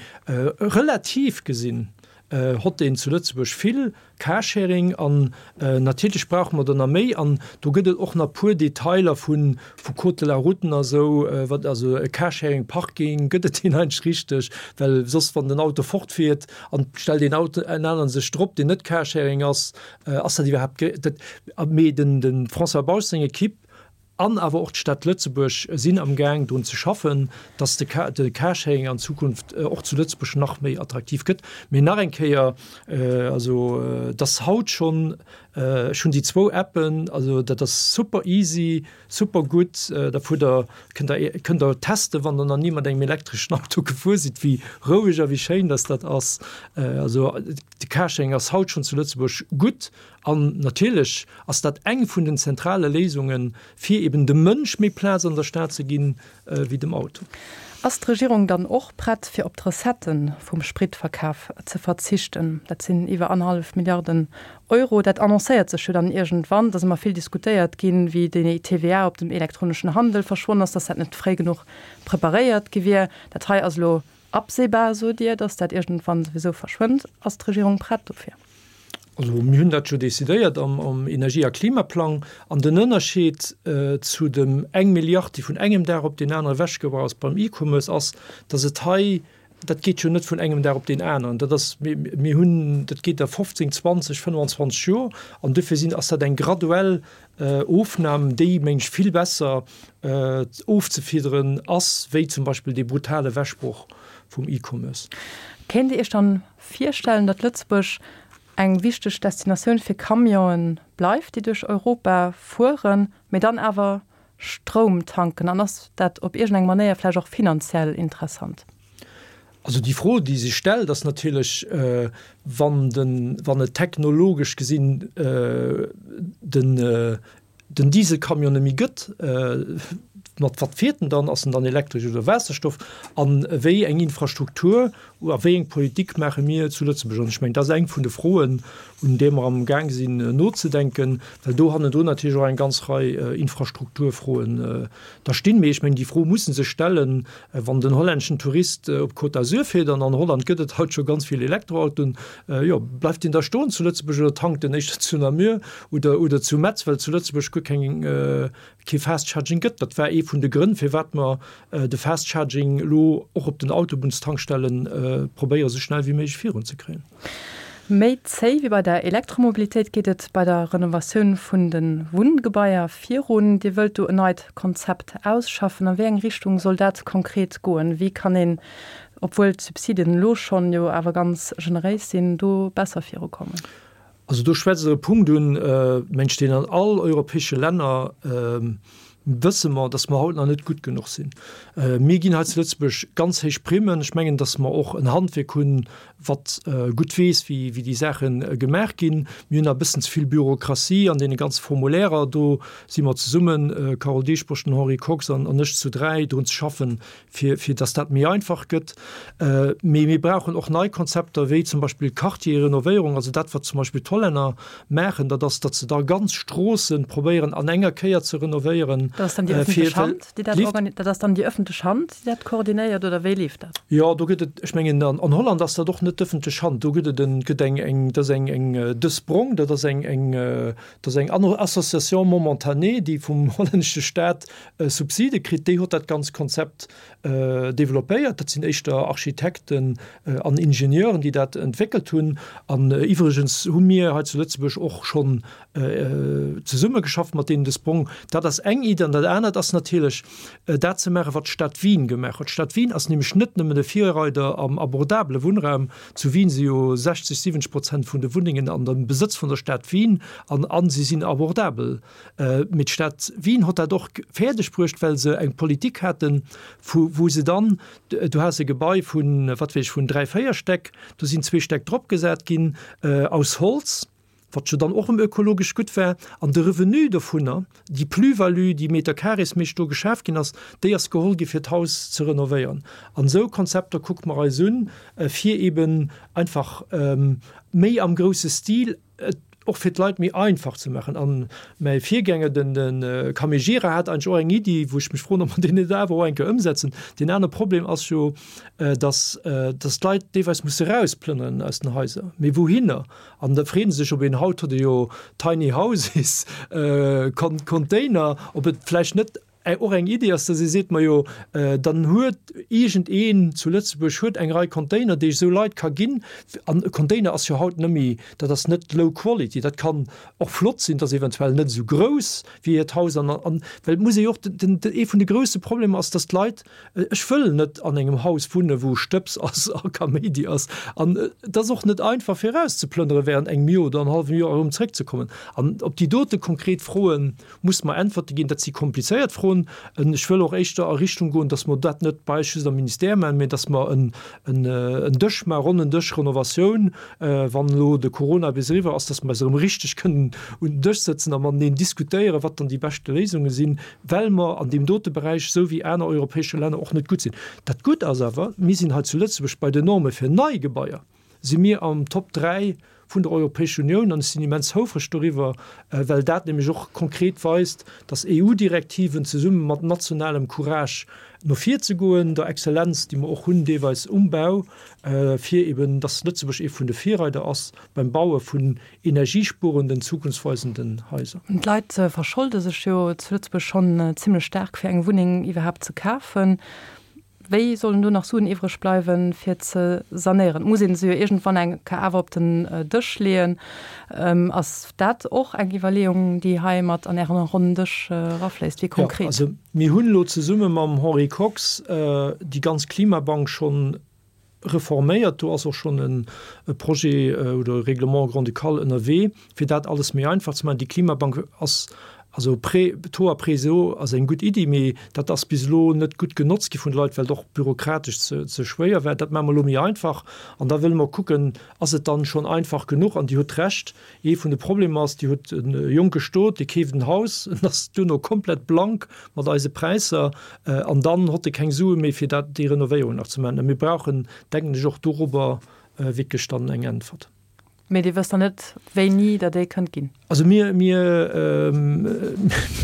C: relativ gesinn hott een zu Lëtzebuerg vill Carsharing an natierlech brauche mer der nach méi an do gëtt et och nach puer Detailer vu vu Code de la route a sou, wat also e Carsharing Parking, gëtt et deen eigentlech richteg, well soss wann den Auto fortfiert an et stellt een Auto en aneren sech drop deen net Carsharing ass, ass dat iwwerhaapt dat mee den de François Bausch seng Equipe An awer och d'Stad Lëtzebuerg sinn am Gaang drun ze schaffen, dass de de Carsharing an Zukunft och zu Lëtzebuerg nach méi attraktiv gëtt. Mee nach eng Kéier, also et ass haut schonn, ech hunn déi zwou Appen, also dat ass super easy, super gutt. Da fuert Der, kënnt Der, kënnt Der testen, wann Der nach ni mat engem elektreschen Auto gefuer sidd, wéi roueg a wéi schéin dass dat ass. Also de Carsharing ass haut schonn zu Lëtzebuerg gutt. An natierlech ass dat eng vun den zentrale Léisungen, fir eben dem Mënsch méi Plaz an der Stad ze ginn, wéi dem Auto.
B: Ass d'Regierung dann och prett, fir op d'Recettë vum Spritverkaf ze verzichten? Dat sinn iwwer annerhallef Milliarden Euro. Dat annoncéiert sech jo dann iergendwann. Et ass ëmmer vill diskutéiert ginn, wéi déi TVA op dem elektroneschen Handel verschwonn ass, dass dat net fréi genuch preparéiert gi wier. Dat hei ass elo absehbar, sot Dir, dass dat iergendwann souwisou verschwënnt. Ass d'Regierung prett dofir?
C: Also mir hunn dat jo decidéiert am Energie a Klimaplang. An den Ënnerscheed zu dem eng Milliard, déi vun engem Dag op deen anere ewechgebrach ass beim E-Commerce, ass, datt et hei, dat geet jo net vun engem Dag op deen aneren, dat ass, mir hunn, dat geet a 15, 20, 25 Joer. An dofir sinn, ass dat eng graduell Ofnam, déi, meng ech, vill besser ofzefiederen ass wéi zum Beispill dee brutale Ewechbroch vum E-Commerce.
B: Kéint Dir Iech dann Virstellen, datt Lëtzebuerg eng wichteg Destinatioun fir Camionen bleift, déi duerch Europa fueren, mee dann awer Stroum tanken? An ass dat op iergendeng Manéier vläicht och finanziell interessant?
C: Also déi Fro, déi sech stellt, ass natierlech, wann den, wann et technologesch gesinn den, den Dieselcamion net méi gëtt, mat wat fiert en dann? Ass en dann elektresch oder Waasserstoff? A wéi eng Infrastruktur a wéi eng Politik maache mir zu Lëtzebuerg? An ech mengen, dat ass eng vun de Froen, un där mer am Gaang sinn nozedenken, well do hannendrun natierlech och eng ganz Rei Infrastrukturfroen da stinn. Mee ech mengen, déi Fro muss e sech stellen, wann den hollänneschen Tourist op d'Côte d'Azur fiert, an an Holland gëtt et haut scho ganz vill Elektroautoen, jo, bleift deen da stoen zu Lëtzebuerg oder tankt en éischter zu Namur? Oder, oder zu Metz, well zu Lëtzebuerg. guer keng, kee Fast Charging gëtt. Dat war ee vun de Grënn, firwat mer de Fast Charging elo och op den Autobunnstankstelle probéiere sou schnell wéi méiglech virunzekréien.
B: Méi zéi wéi bei der Elektromobilitéit geet et bei der Renovatioun vun de Wunngebaier virun. Dir wëllt do en neit Konzept ausschaffen. A wéi eng Richtung soll dat konkret goen? Wéi kann een, obwuel d'Subsiden elo schonn jo awer ganz generéis sinn, do besser virukommen?
C: Also do schwätzt Der e Punkt un, mengt ech, deen an all europäesche Länner, wësse mer, datt mer haut nach net gutt genuch sinn. Mir ginn hei zu Lëtzebuerg ganz héich Primmen. Ech mengen, datt mer och en Handwierk hunn, wat gutt weess, wéi déi Saache gemaach ginn. Mir hunn nach e bëssen ze vill Bürokratie an deene ganze Formulairer. Do si mer zesummen, Carole Dieschbourg, den Henri Kox an ech zu dräi, drun ze schaffen, fir, fir dass dat méi einfach gëtt. Mee mir brauchen och nei Konzepter, wéi zum Beispill Quartier-Renovéierung, also dat, wat zum Beispill d'Hollänner maachen, dat ass, datt se da ganz Stroosse probéieren an enger Kéier ze renovéieren.
B: Dat ass dann déi ëffentlech Hand, déi dat organi-, dat ass dann déi ëffentlech Hand, déi dat koordinéiert, oder wéi leeft dat?
C: Jo, do gëtt et, ech mengen, an, an Holland ass dat och net d'ëffentlech Hand, do gëtt et en, gëtt eng, eng, dat ass eng, eng De Sprong, dat ass eng, eng, dat ass eng Association momentanée, déi vum hollännesche Staat Subside kritt, déi huet dat ganz Konzept developpéiert. Dat sinn éischter Architekten an Ingenieuren, déi dat entwéckelt hunn. An iwwregens hu mir hei zu Lëtzebuerg och schonn zesummegeschafft mat deenen. De Sprong, dat ass eng Iddi. An dat anert ass natierlech, dat ze maachen, wat d'Stad Wien gemaach huet. D'Stad Wien ass nämlech net nëmmen e Virreider am abordabele Wunnraum. Zu Wien si jo 60, 70 Prozent vun de Wunnengen an dem Besëtz vun der Stad Wien an si sinn abordabel. Mee d'Stad Wien hott dat och fäerdeg bruecht, well se eng Politik haten, vu wou se dann, du has e Gebai vun, wat weess ech, vun dräi, véier Stäck, do sinn zwee Stäck dropgesat ginn aus Holz, wat jo dann och erëm ökologesch gutt war, an de Revenu dovunner, déi Plus-value, déi meterkareesméisseg do geschaf ginn ass, déi ass geholl gi fir d'Haus ze renovéieren. An esou Konzepter kucke mer eis un, fir eeben einfach méi am grousse Stil et och fir d'Leit méi einfach ze maachen. An mäi Virgänger, den de Camille Gira, hat eigentlech och eng Iddi, wou ech mech froen, ob mer déi net awer och eng Kéier ëmsetzen. Deen anere Problem ass jo, dass dass d'Leit deelweis musse erausplënneren aus den Haiser. Mee wouhinner? An da freeë se sech, ob een, haut huet ee jo Tiny Houses, Container, ob et vläicht net och eng Idee ass, dass ee seet, majo dann huet iergendeen zu Lëtzebuerg huet eng Rei Container, déi ech esou Leit ka ginn. An e Container ass jo haut net méi, dat ass net low quality, dat kann och flott sinn, dat ass eventuell net esou grouss wéi hiert Haus. An, an, well et muss ee jo och, den, ee vun de grousse Problemer ass, dass d'Leit, ech wëll net an engem Haus wunne wou Stëbs ass a Kaméidi ass. An et ass och net einfach fir erauszeplënnere während engem Joer oder en hallwem Joer erëm zréckzekommen. An op déi dote konkret Froen Muss mer Äntwerte ginn. Dat si komplizéiert Froen. Ech wëll och éischter a Richtung goen, dass mer dat net bei eis just am Ministère maachen, mä dass mer en Dësch maachen, ronnen Dësch Renovatioun, wann elo de Corona bis eriwwer ass, dass mer eis erëm richteg kënnen un den Dësch sëtzen a mateneen diskutéieren, wat dann déi beschte Léisunge sinn, well mer an deem dote Beräich, esou wéi aner europäesche Länner, och net gutt sinn. Dat Gutt ass awer, mir sinn hei zu Lëtzebuerg bei den Norme fir nei Gebaier si mir am Top 3 vun der Europäescher Unioun an ech sinn immens houfreg doriwwer, well dat nämlech och konkret weist, dass EU-Direktiven zesumme mat nationalem Courage no vir ze goen, der Exzellenz, déi mer och hunn deelweis um Bau, fir eben, dass Lëtzebuerg ee vun de Virreider ass beim Baue vun energiespuerenden, zukunftsweisenden Haiser.
B: D'Leit verscholde sech jo zu Lëtzebuerg schonn zimlech staark, fir eng Wunneng iwwerhaapt ze kafen. Wéi sollen do nach Suen iwwreg bleiwen, fir ze sanéieren? Et muss ee se jo iergendwann eng Kéier awer op den Dësch leeën. Ass dat och eng Iwwerleeung, déi hei mat an Ären ronnen Dësch erafléisst? Wéi konkret?
C: Jo, also mir hunn elo zesumme mam Henri Kox déi ganz Klimabank schonn reforméiert. Do ass och schonn e Projet oder e Règlement grand-ducal ënnerwee, fir dat alles méi einfach ze maachen. Déi Klimabank ass also Prêt, Taux à prêt zéro ass eng gutt Iddi, mee dat ass bis elo net gutt genotzt gi vun de Leit, well et och bürokratesch ze ze schwéier war. Dat maache mer elo méi einfach an da wëlle mer kucken, ass et dann schonn einfach genuch? An Dir hutt Recht, ee vun de Problemer ass, Dir hutt e jonke Stot, dee keeft en Haus, en ass duerno komplett blank mat eise Präisser an dann hott e keng Sue méi fir dat déi Renovéierung nach ze maachen. A mir brauchen, denken ech, och dorobber wierklech dann eng Äntwert.
B: Mee Dir wësst dann net, wéini Der déi kënnt ginn?
C: Also mir, mir,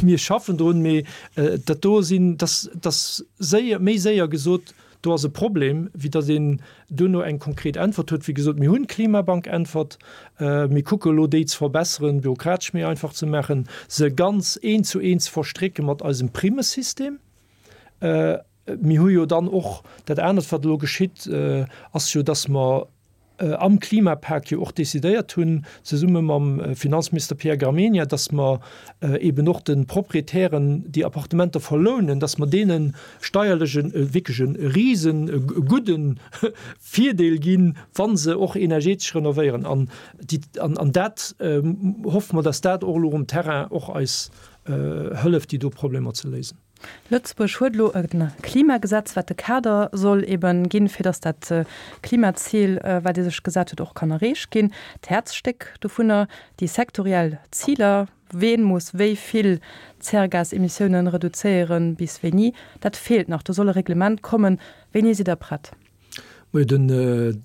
C: mir schaffen drun, mee dat do sinn, dass, dass séier, méi séier gesot. Do ass e Problem, wéi datt een duerno eng konkret Äntwert huet. Wéi gesot, mir hunn d'Klimabank-Äntwert. Mir kucke elo, déi ze verbesseren, bürokratesch méi einfach ze maachen, se ganz eent zu eent ze verstrécke mat eisem Primmesystem. Mir hu jo dann och dat anert, wat elo geschitt, ass jo, datt mer am Klimapak jo och decidéiert hunn, zesumme mam Finanzminister Pierre Gramegna, datt mer eeben och de Proprietären, déi Appartementer verlounen, datt mer deene steierlech e wierklech e risen e gudde Virdeel ginn, wa se och energetesch renovéieren. An déi, an dat hoffe mer, datt dat och elo um Terrain och eis hëlleft, déi do Problemer ze léisen.
B: Lëtzebuerg huet elo e Klimagesetz, wat de Kader soll eben ginn, fir datt dat Klimazil, wat ee sech gesat huet, och kann erreecht ginn. D'Häerzstéck dovunner, déi sektoriell Ziler, ween muss wéi vill Zäregasemissiounen reduzéieren, bis wéini, dat feelt nach. Do soll e Reglement kommen. Wéini sidd Der prett?
C: Majo, den, et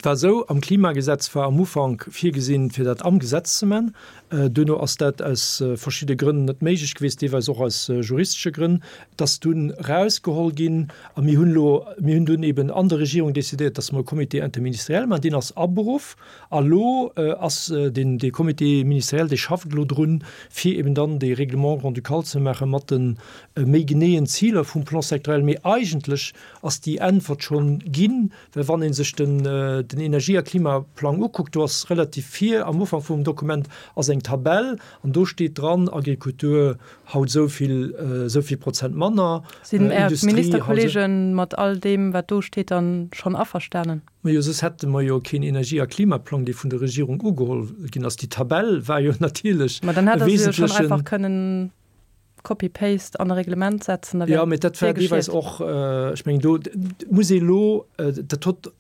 C: war esou, am Klimagesetz war am Ufank virgesinn, fir dat am Gesetz ze man. Duerno ass dat aus verschidde Grënn net méiglech gewiescht, deelweis och aus juristesche Grënn. Et ass dunn erausgeholl ginn a mir hunn elo, mir hunn dunn eben an der Regierung decidéiert, dass mer e Comité interministériel maachen. Deen ass aberuff a lo ass deen, dee Comité ministériel, dee schafft elo drun, fir eben dann dee Règlement grand-ducal ze maache mat de méi geneeën Ziler vum Plan sectoriel. Mee eigentlech ass déi Äntwert schonn ginn, well wann ee sech den den Energie a Klimaplang ukuckt, do ass relativ vir am Ufank vum Dokument ass eng Tabell an do steet dran, Agrikultur haut esou vill, esou vill Prozent manner,
B: Sinn Är Industrie haut esou. Ministerkollegen mat all deem, wat do steet, dann schonn averstanen?
C: Majo, soss hätte mer jo keen Energie a Klimaplang, dee vun der Regierung ugeholl ginn ass. Déi Tabell war jo natierlech
B: Ma dann hätt e Der se jo schonn wesentlechen. einfach kënnen. Copy-Paste an e Reglement setzen,
C: da wär Ja, mee dat war deelweis och, ech mengen do muss ee lo, dat hott,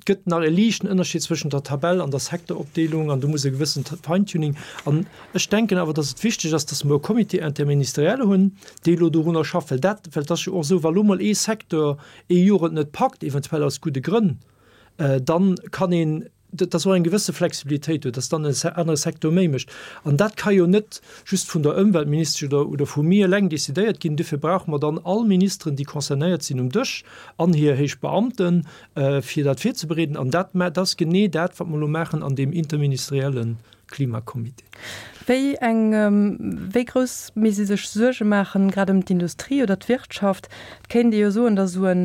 C: gëtt nach e liichten Ënnerscheed zwëschent der Tabell an der Secteuropdeelung an do muss e gewëssent Feintuning. An ech denken awer, datt et wichteg ass, datt mer e Comité interministériel hunn, dee lo dorunner schafft, well dat, well et ass jo och esou, wa lo mol ee Secteur ee Joer et net packt, eventuell aus gudde Grënn, dann kann een, dass och eng gewësse Flexibilitéit huet, dass dann en anere Secteur méi mécht. An dat ka jo net just vun der Ëmweltministesch oder, oder vu mir eleng decidéiert ginn. Dofir brauche mer dann all Ministeren, déi concernéiert sinn, um Dësch an hir héich Beamten, fir dat virzebereeden. An dat, dat ass genee dat, wat mer elo maachen an deem interministerielle Klimacomité.
B: Wéi eng, wéi grouss misst ee sech Suerge maachen, grad ëm d'Industrie oder d'Wirtschaft? Et kéint ee jo soen, datt esou e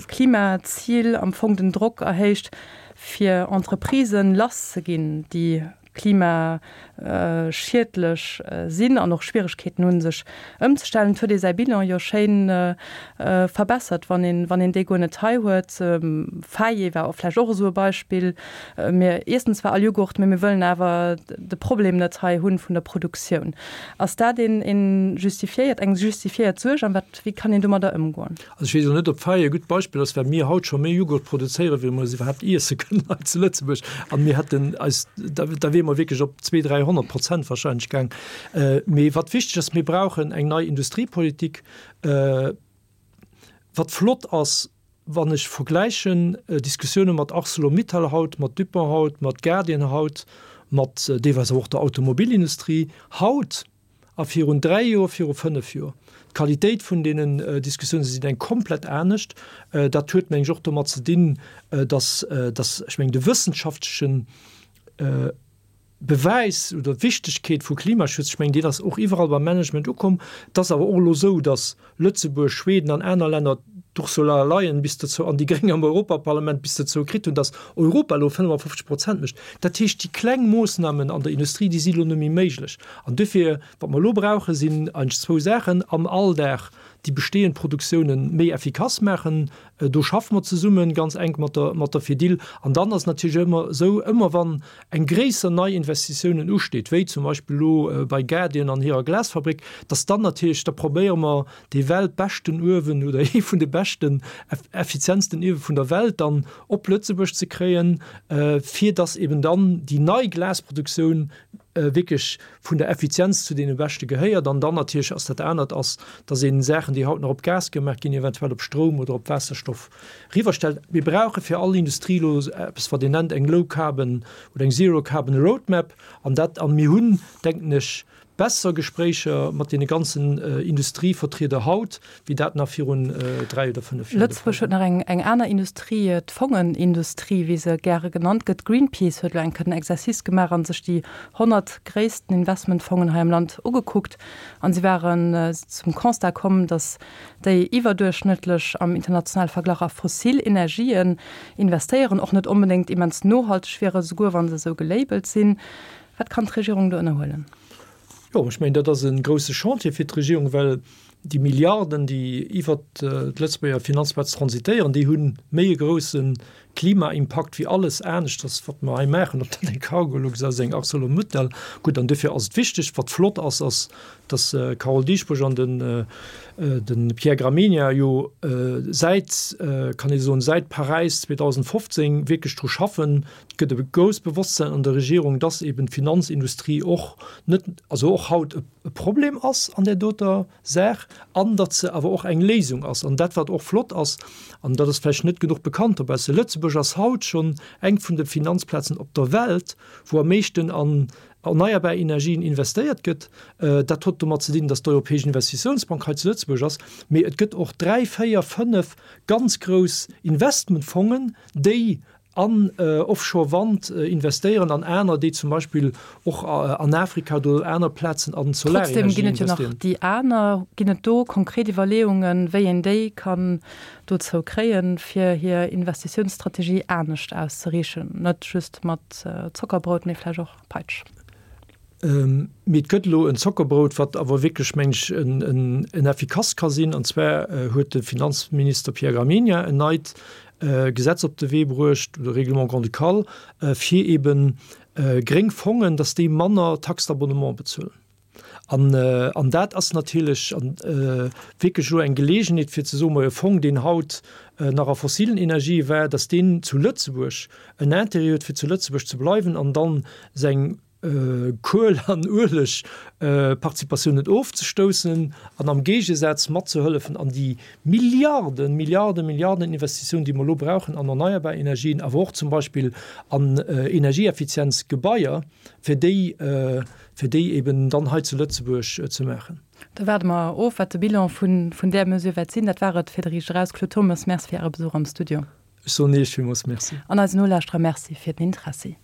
B: Klimazil am Fong den Drock erhéicht, fir Entreprisen lass ze ginn, déi klimaschiedlech sinn an och Schwieregkeeten hunn, sech ëmzestellen. Et huet ee säi Bilan jo schéin verbessert, wann een, wann een déi guer net hei huet. Faye war och vläicht och esou e Beispill. Mir iessen zwar all Jughurt, mee mir wëllen awer de Problem net hei hunn vun der Produktioun. Ass dat een, een justifiéiert, eng justifiéiert Suerg an wat, wéi kann een domadder ëmgoen?
C: Also ech weess elo net, ob Faye e gutt Beispill ass, well mir haut scho méi Jughurt produzéieren, wéi mer se iwwerhaapt iesse kënnen hei zu Lëtzebuerg. An mir hätten eis, da, da wiere mer wierklech op 200, 300 Prozent wahrscheinlech gaang. Mee wat wichteg ass, mir brauchen eng nei Industriepolitik. Wat flott ass, wann ech vergläichen Diskussioune mat Arcelor-Mittal haut, mat Dupont haut, mat Guardian haut, mat deelweis awer och der Automobilindustrie haut a virun 3 Joer, viru 5 Joer, d'Qualitéit vun deenen Diskussiounen sinn eng komplett anescht. Dat huet, meng ech, och domat ze dinn, dass, dass, ech mengen, de wëssenschaftlechen Bewäis oder d'Wichtegkeet vu Klimaschutz, ech mengen, deen ass och iwwerall beim Management ukomm. Et ass awer och elo esou, datt Lëtzebuerg, Schweden an aner Länner d'Ursula Leyen bis dozou an déi Gréng am Europaparlament bis dozou kritt hunn, datt Europa elo 55 Prozent mécht. Dat heescht, déi kleng Moossnamen an der Industrie, déi si elo net méi méiglech. An duerfir, wat mer elo brauchen, sinn eigentlech zwou Saachen, am Alldag déi bestehend Produktiounen méi effikass maachen, Do schaffe mer zesumme ganz enk mat der, mat der Fedil. An dann ass et natierlech ëmmer esou, ëmmer wann eng gréisser Neiinvestitiounen usteet, wéi zum Beispill elo bei Guardian an hirer Glasfabrik, dass dann natierlech, da probéiere mer dee weltbeschten Uewen oder ee vun de beschten, effizientsten Uewe vun der Welt dann op Lëtzebuerg ze kréien, fir dass eben dann déi nei Glasproduktioun wierklech vun der Effizienz zu deene beschte gehéiert. An dann natierlech ass dat anert ass, dass een Saachen, déi haut nach op Gas gemaach ginn, eventuell op Stroum oder op Waasserstoff riwwerstellt. Mir brauche fir all Industrie elo eppes, wat een nennt eng Low Carbon oder eng Zero Carbon Roadmap. An dat, an mir hunn, denken ech, besser Gespréicher mat deene ganzen Industrievertrieder haut, wéi dat nach virun 3 oder 5
B: Joer de Fall Lëtzebuerg huet
C: war.
B: nach eng aner Industrie, d'Fongenindustrie, wéi se gäre genannt gëtt. Greenpeace huet elo eng Kéier den Exercice gemaach a sech déi 100 gréissten Investmentfongen hei am Land ugekuckt. An si waren zum Constat komm, datt déi iwwerduerchschnëttlech am internationale Verglach a fossil Energien investéieren, och net onbedéngt immens nohalteg wieren, souguer wa se esou gelabelt sinn. Wat kann d'Regierung do ënnerhuelen?
C: Jo, ech mengen, dat ass e grouse Chantier fir d'Regierung, well déi Milliarden, déi iwwert d'Lëtzebuerger Finanzplaz transitéieren, déi hu méi e grouse Klimaimpakt wéi alles aneschters, wat mer hei maachen, ob dat eng Cargolux ass, eng Arcelor-Mittal. Gutt, an duerfir ass et wichteg, wat flott ass, ass, dass d'Carole Dieschbourg an de Pierre Gramegna jo säit, kann ee soen, säit Paräis 2015 wierklech dru schaffen, Et gëtt e grousst Bewosstsein an der Regierung, dass eben d'Finanzindustrie och net, also och haut e Problem ass an där doter Saach an datt se awer och eng Léisung ass. An dat, wat och flott ass, an dat ass vläicht net genuch bekannt dobausse, Lëtzebuerg ass haut schonn eng vun de Finanzplazen op der Welt, wou am meeschten an erneierbar Energien investéiert gëtt. Dat huet domat ze dinn, datt d'Europäesch Investitiounsbank hei zu Lëtzebuerg ass. Mee et gëtt och dräi, véier, fënnef ganz grouss Investmentfongen, déi an Offshore Wand investéieren an aner, déi zum Beispill och an Afrika oder aner Plazen an
B: Solarenergie investéieren. Trotzdem ginn et jo nach déi aner. Ginn et do konkret Iwwerleeungen, wéi een déi kann dozou kréien, fir hir Investitiounsstrategie anescht auszeriichen, net just mat Zockerbrout, mee vläicht och Peitsch?
C: Mee et gëtt elo en Zockerbrout, wat awer wierklech, meng ech, en effikass ka sinn. An zwar huet de Finanzminister Pierre Gramegna en neit Gesetz op de Wee bruecht, oder Règlement grand-ducal, fir eebe gréng Fongen, datt déi manner Taxe d'abonnement bezuelen. An dat ass natierlech wierklech elo eng Geleegenheet, fir ze soen, Majo, e Fong, deen haut nach a fossilen Energië war, datt deen zu Lëtzebuerg en Intérêt huet, fir zu Lëtzebuerg ze bleiwen an dann seng Kuel an Uelegparticipatiounen ofzestoussen an am Géigesaz matzehëllefen an déi Milliarden, Milliarden, Milliarden Investitiounen, déi mer elo brauchen an erneierbar Energien, awer och zum Beispill an energieeffizienz Gebaier, fir déi, fir déi eben dann hei zu Lëtzebuerg ze maachen.
B: Da waarde mer of, wat de Bilan vun där Mesure wäert sinn. Dat war et fir de Riicht Eraus. Claude Turmes, Merci fir Äre Besuch am Studio.
C: Ech soen Iech villmools Merci.
B: An eisen Nolauschterer Merci fir den Interessi.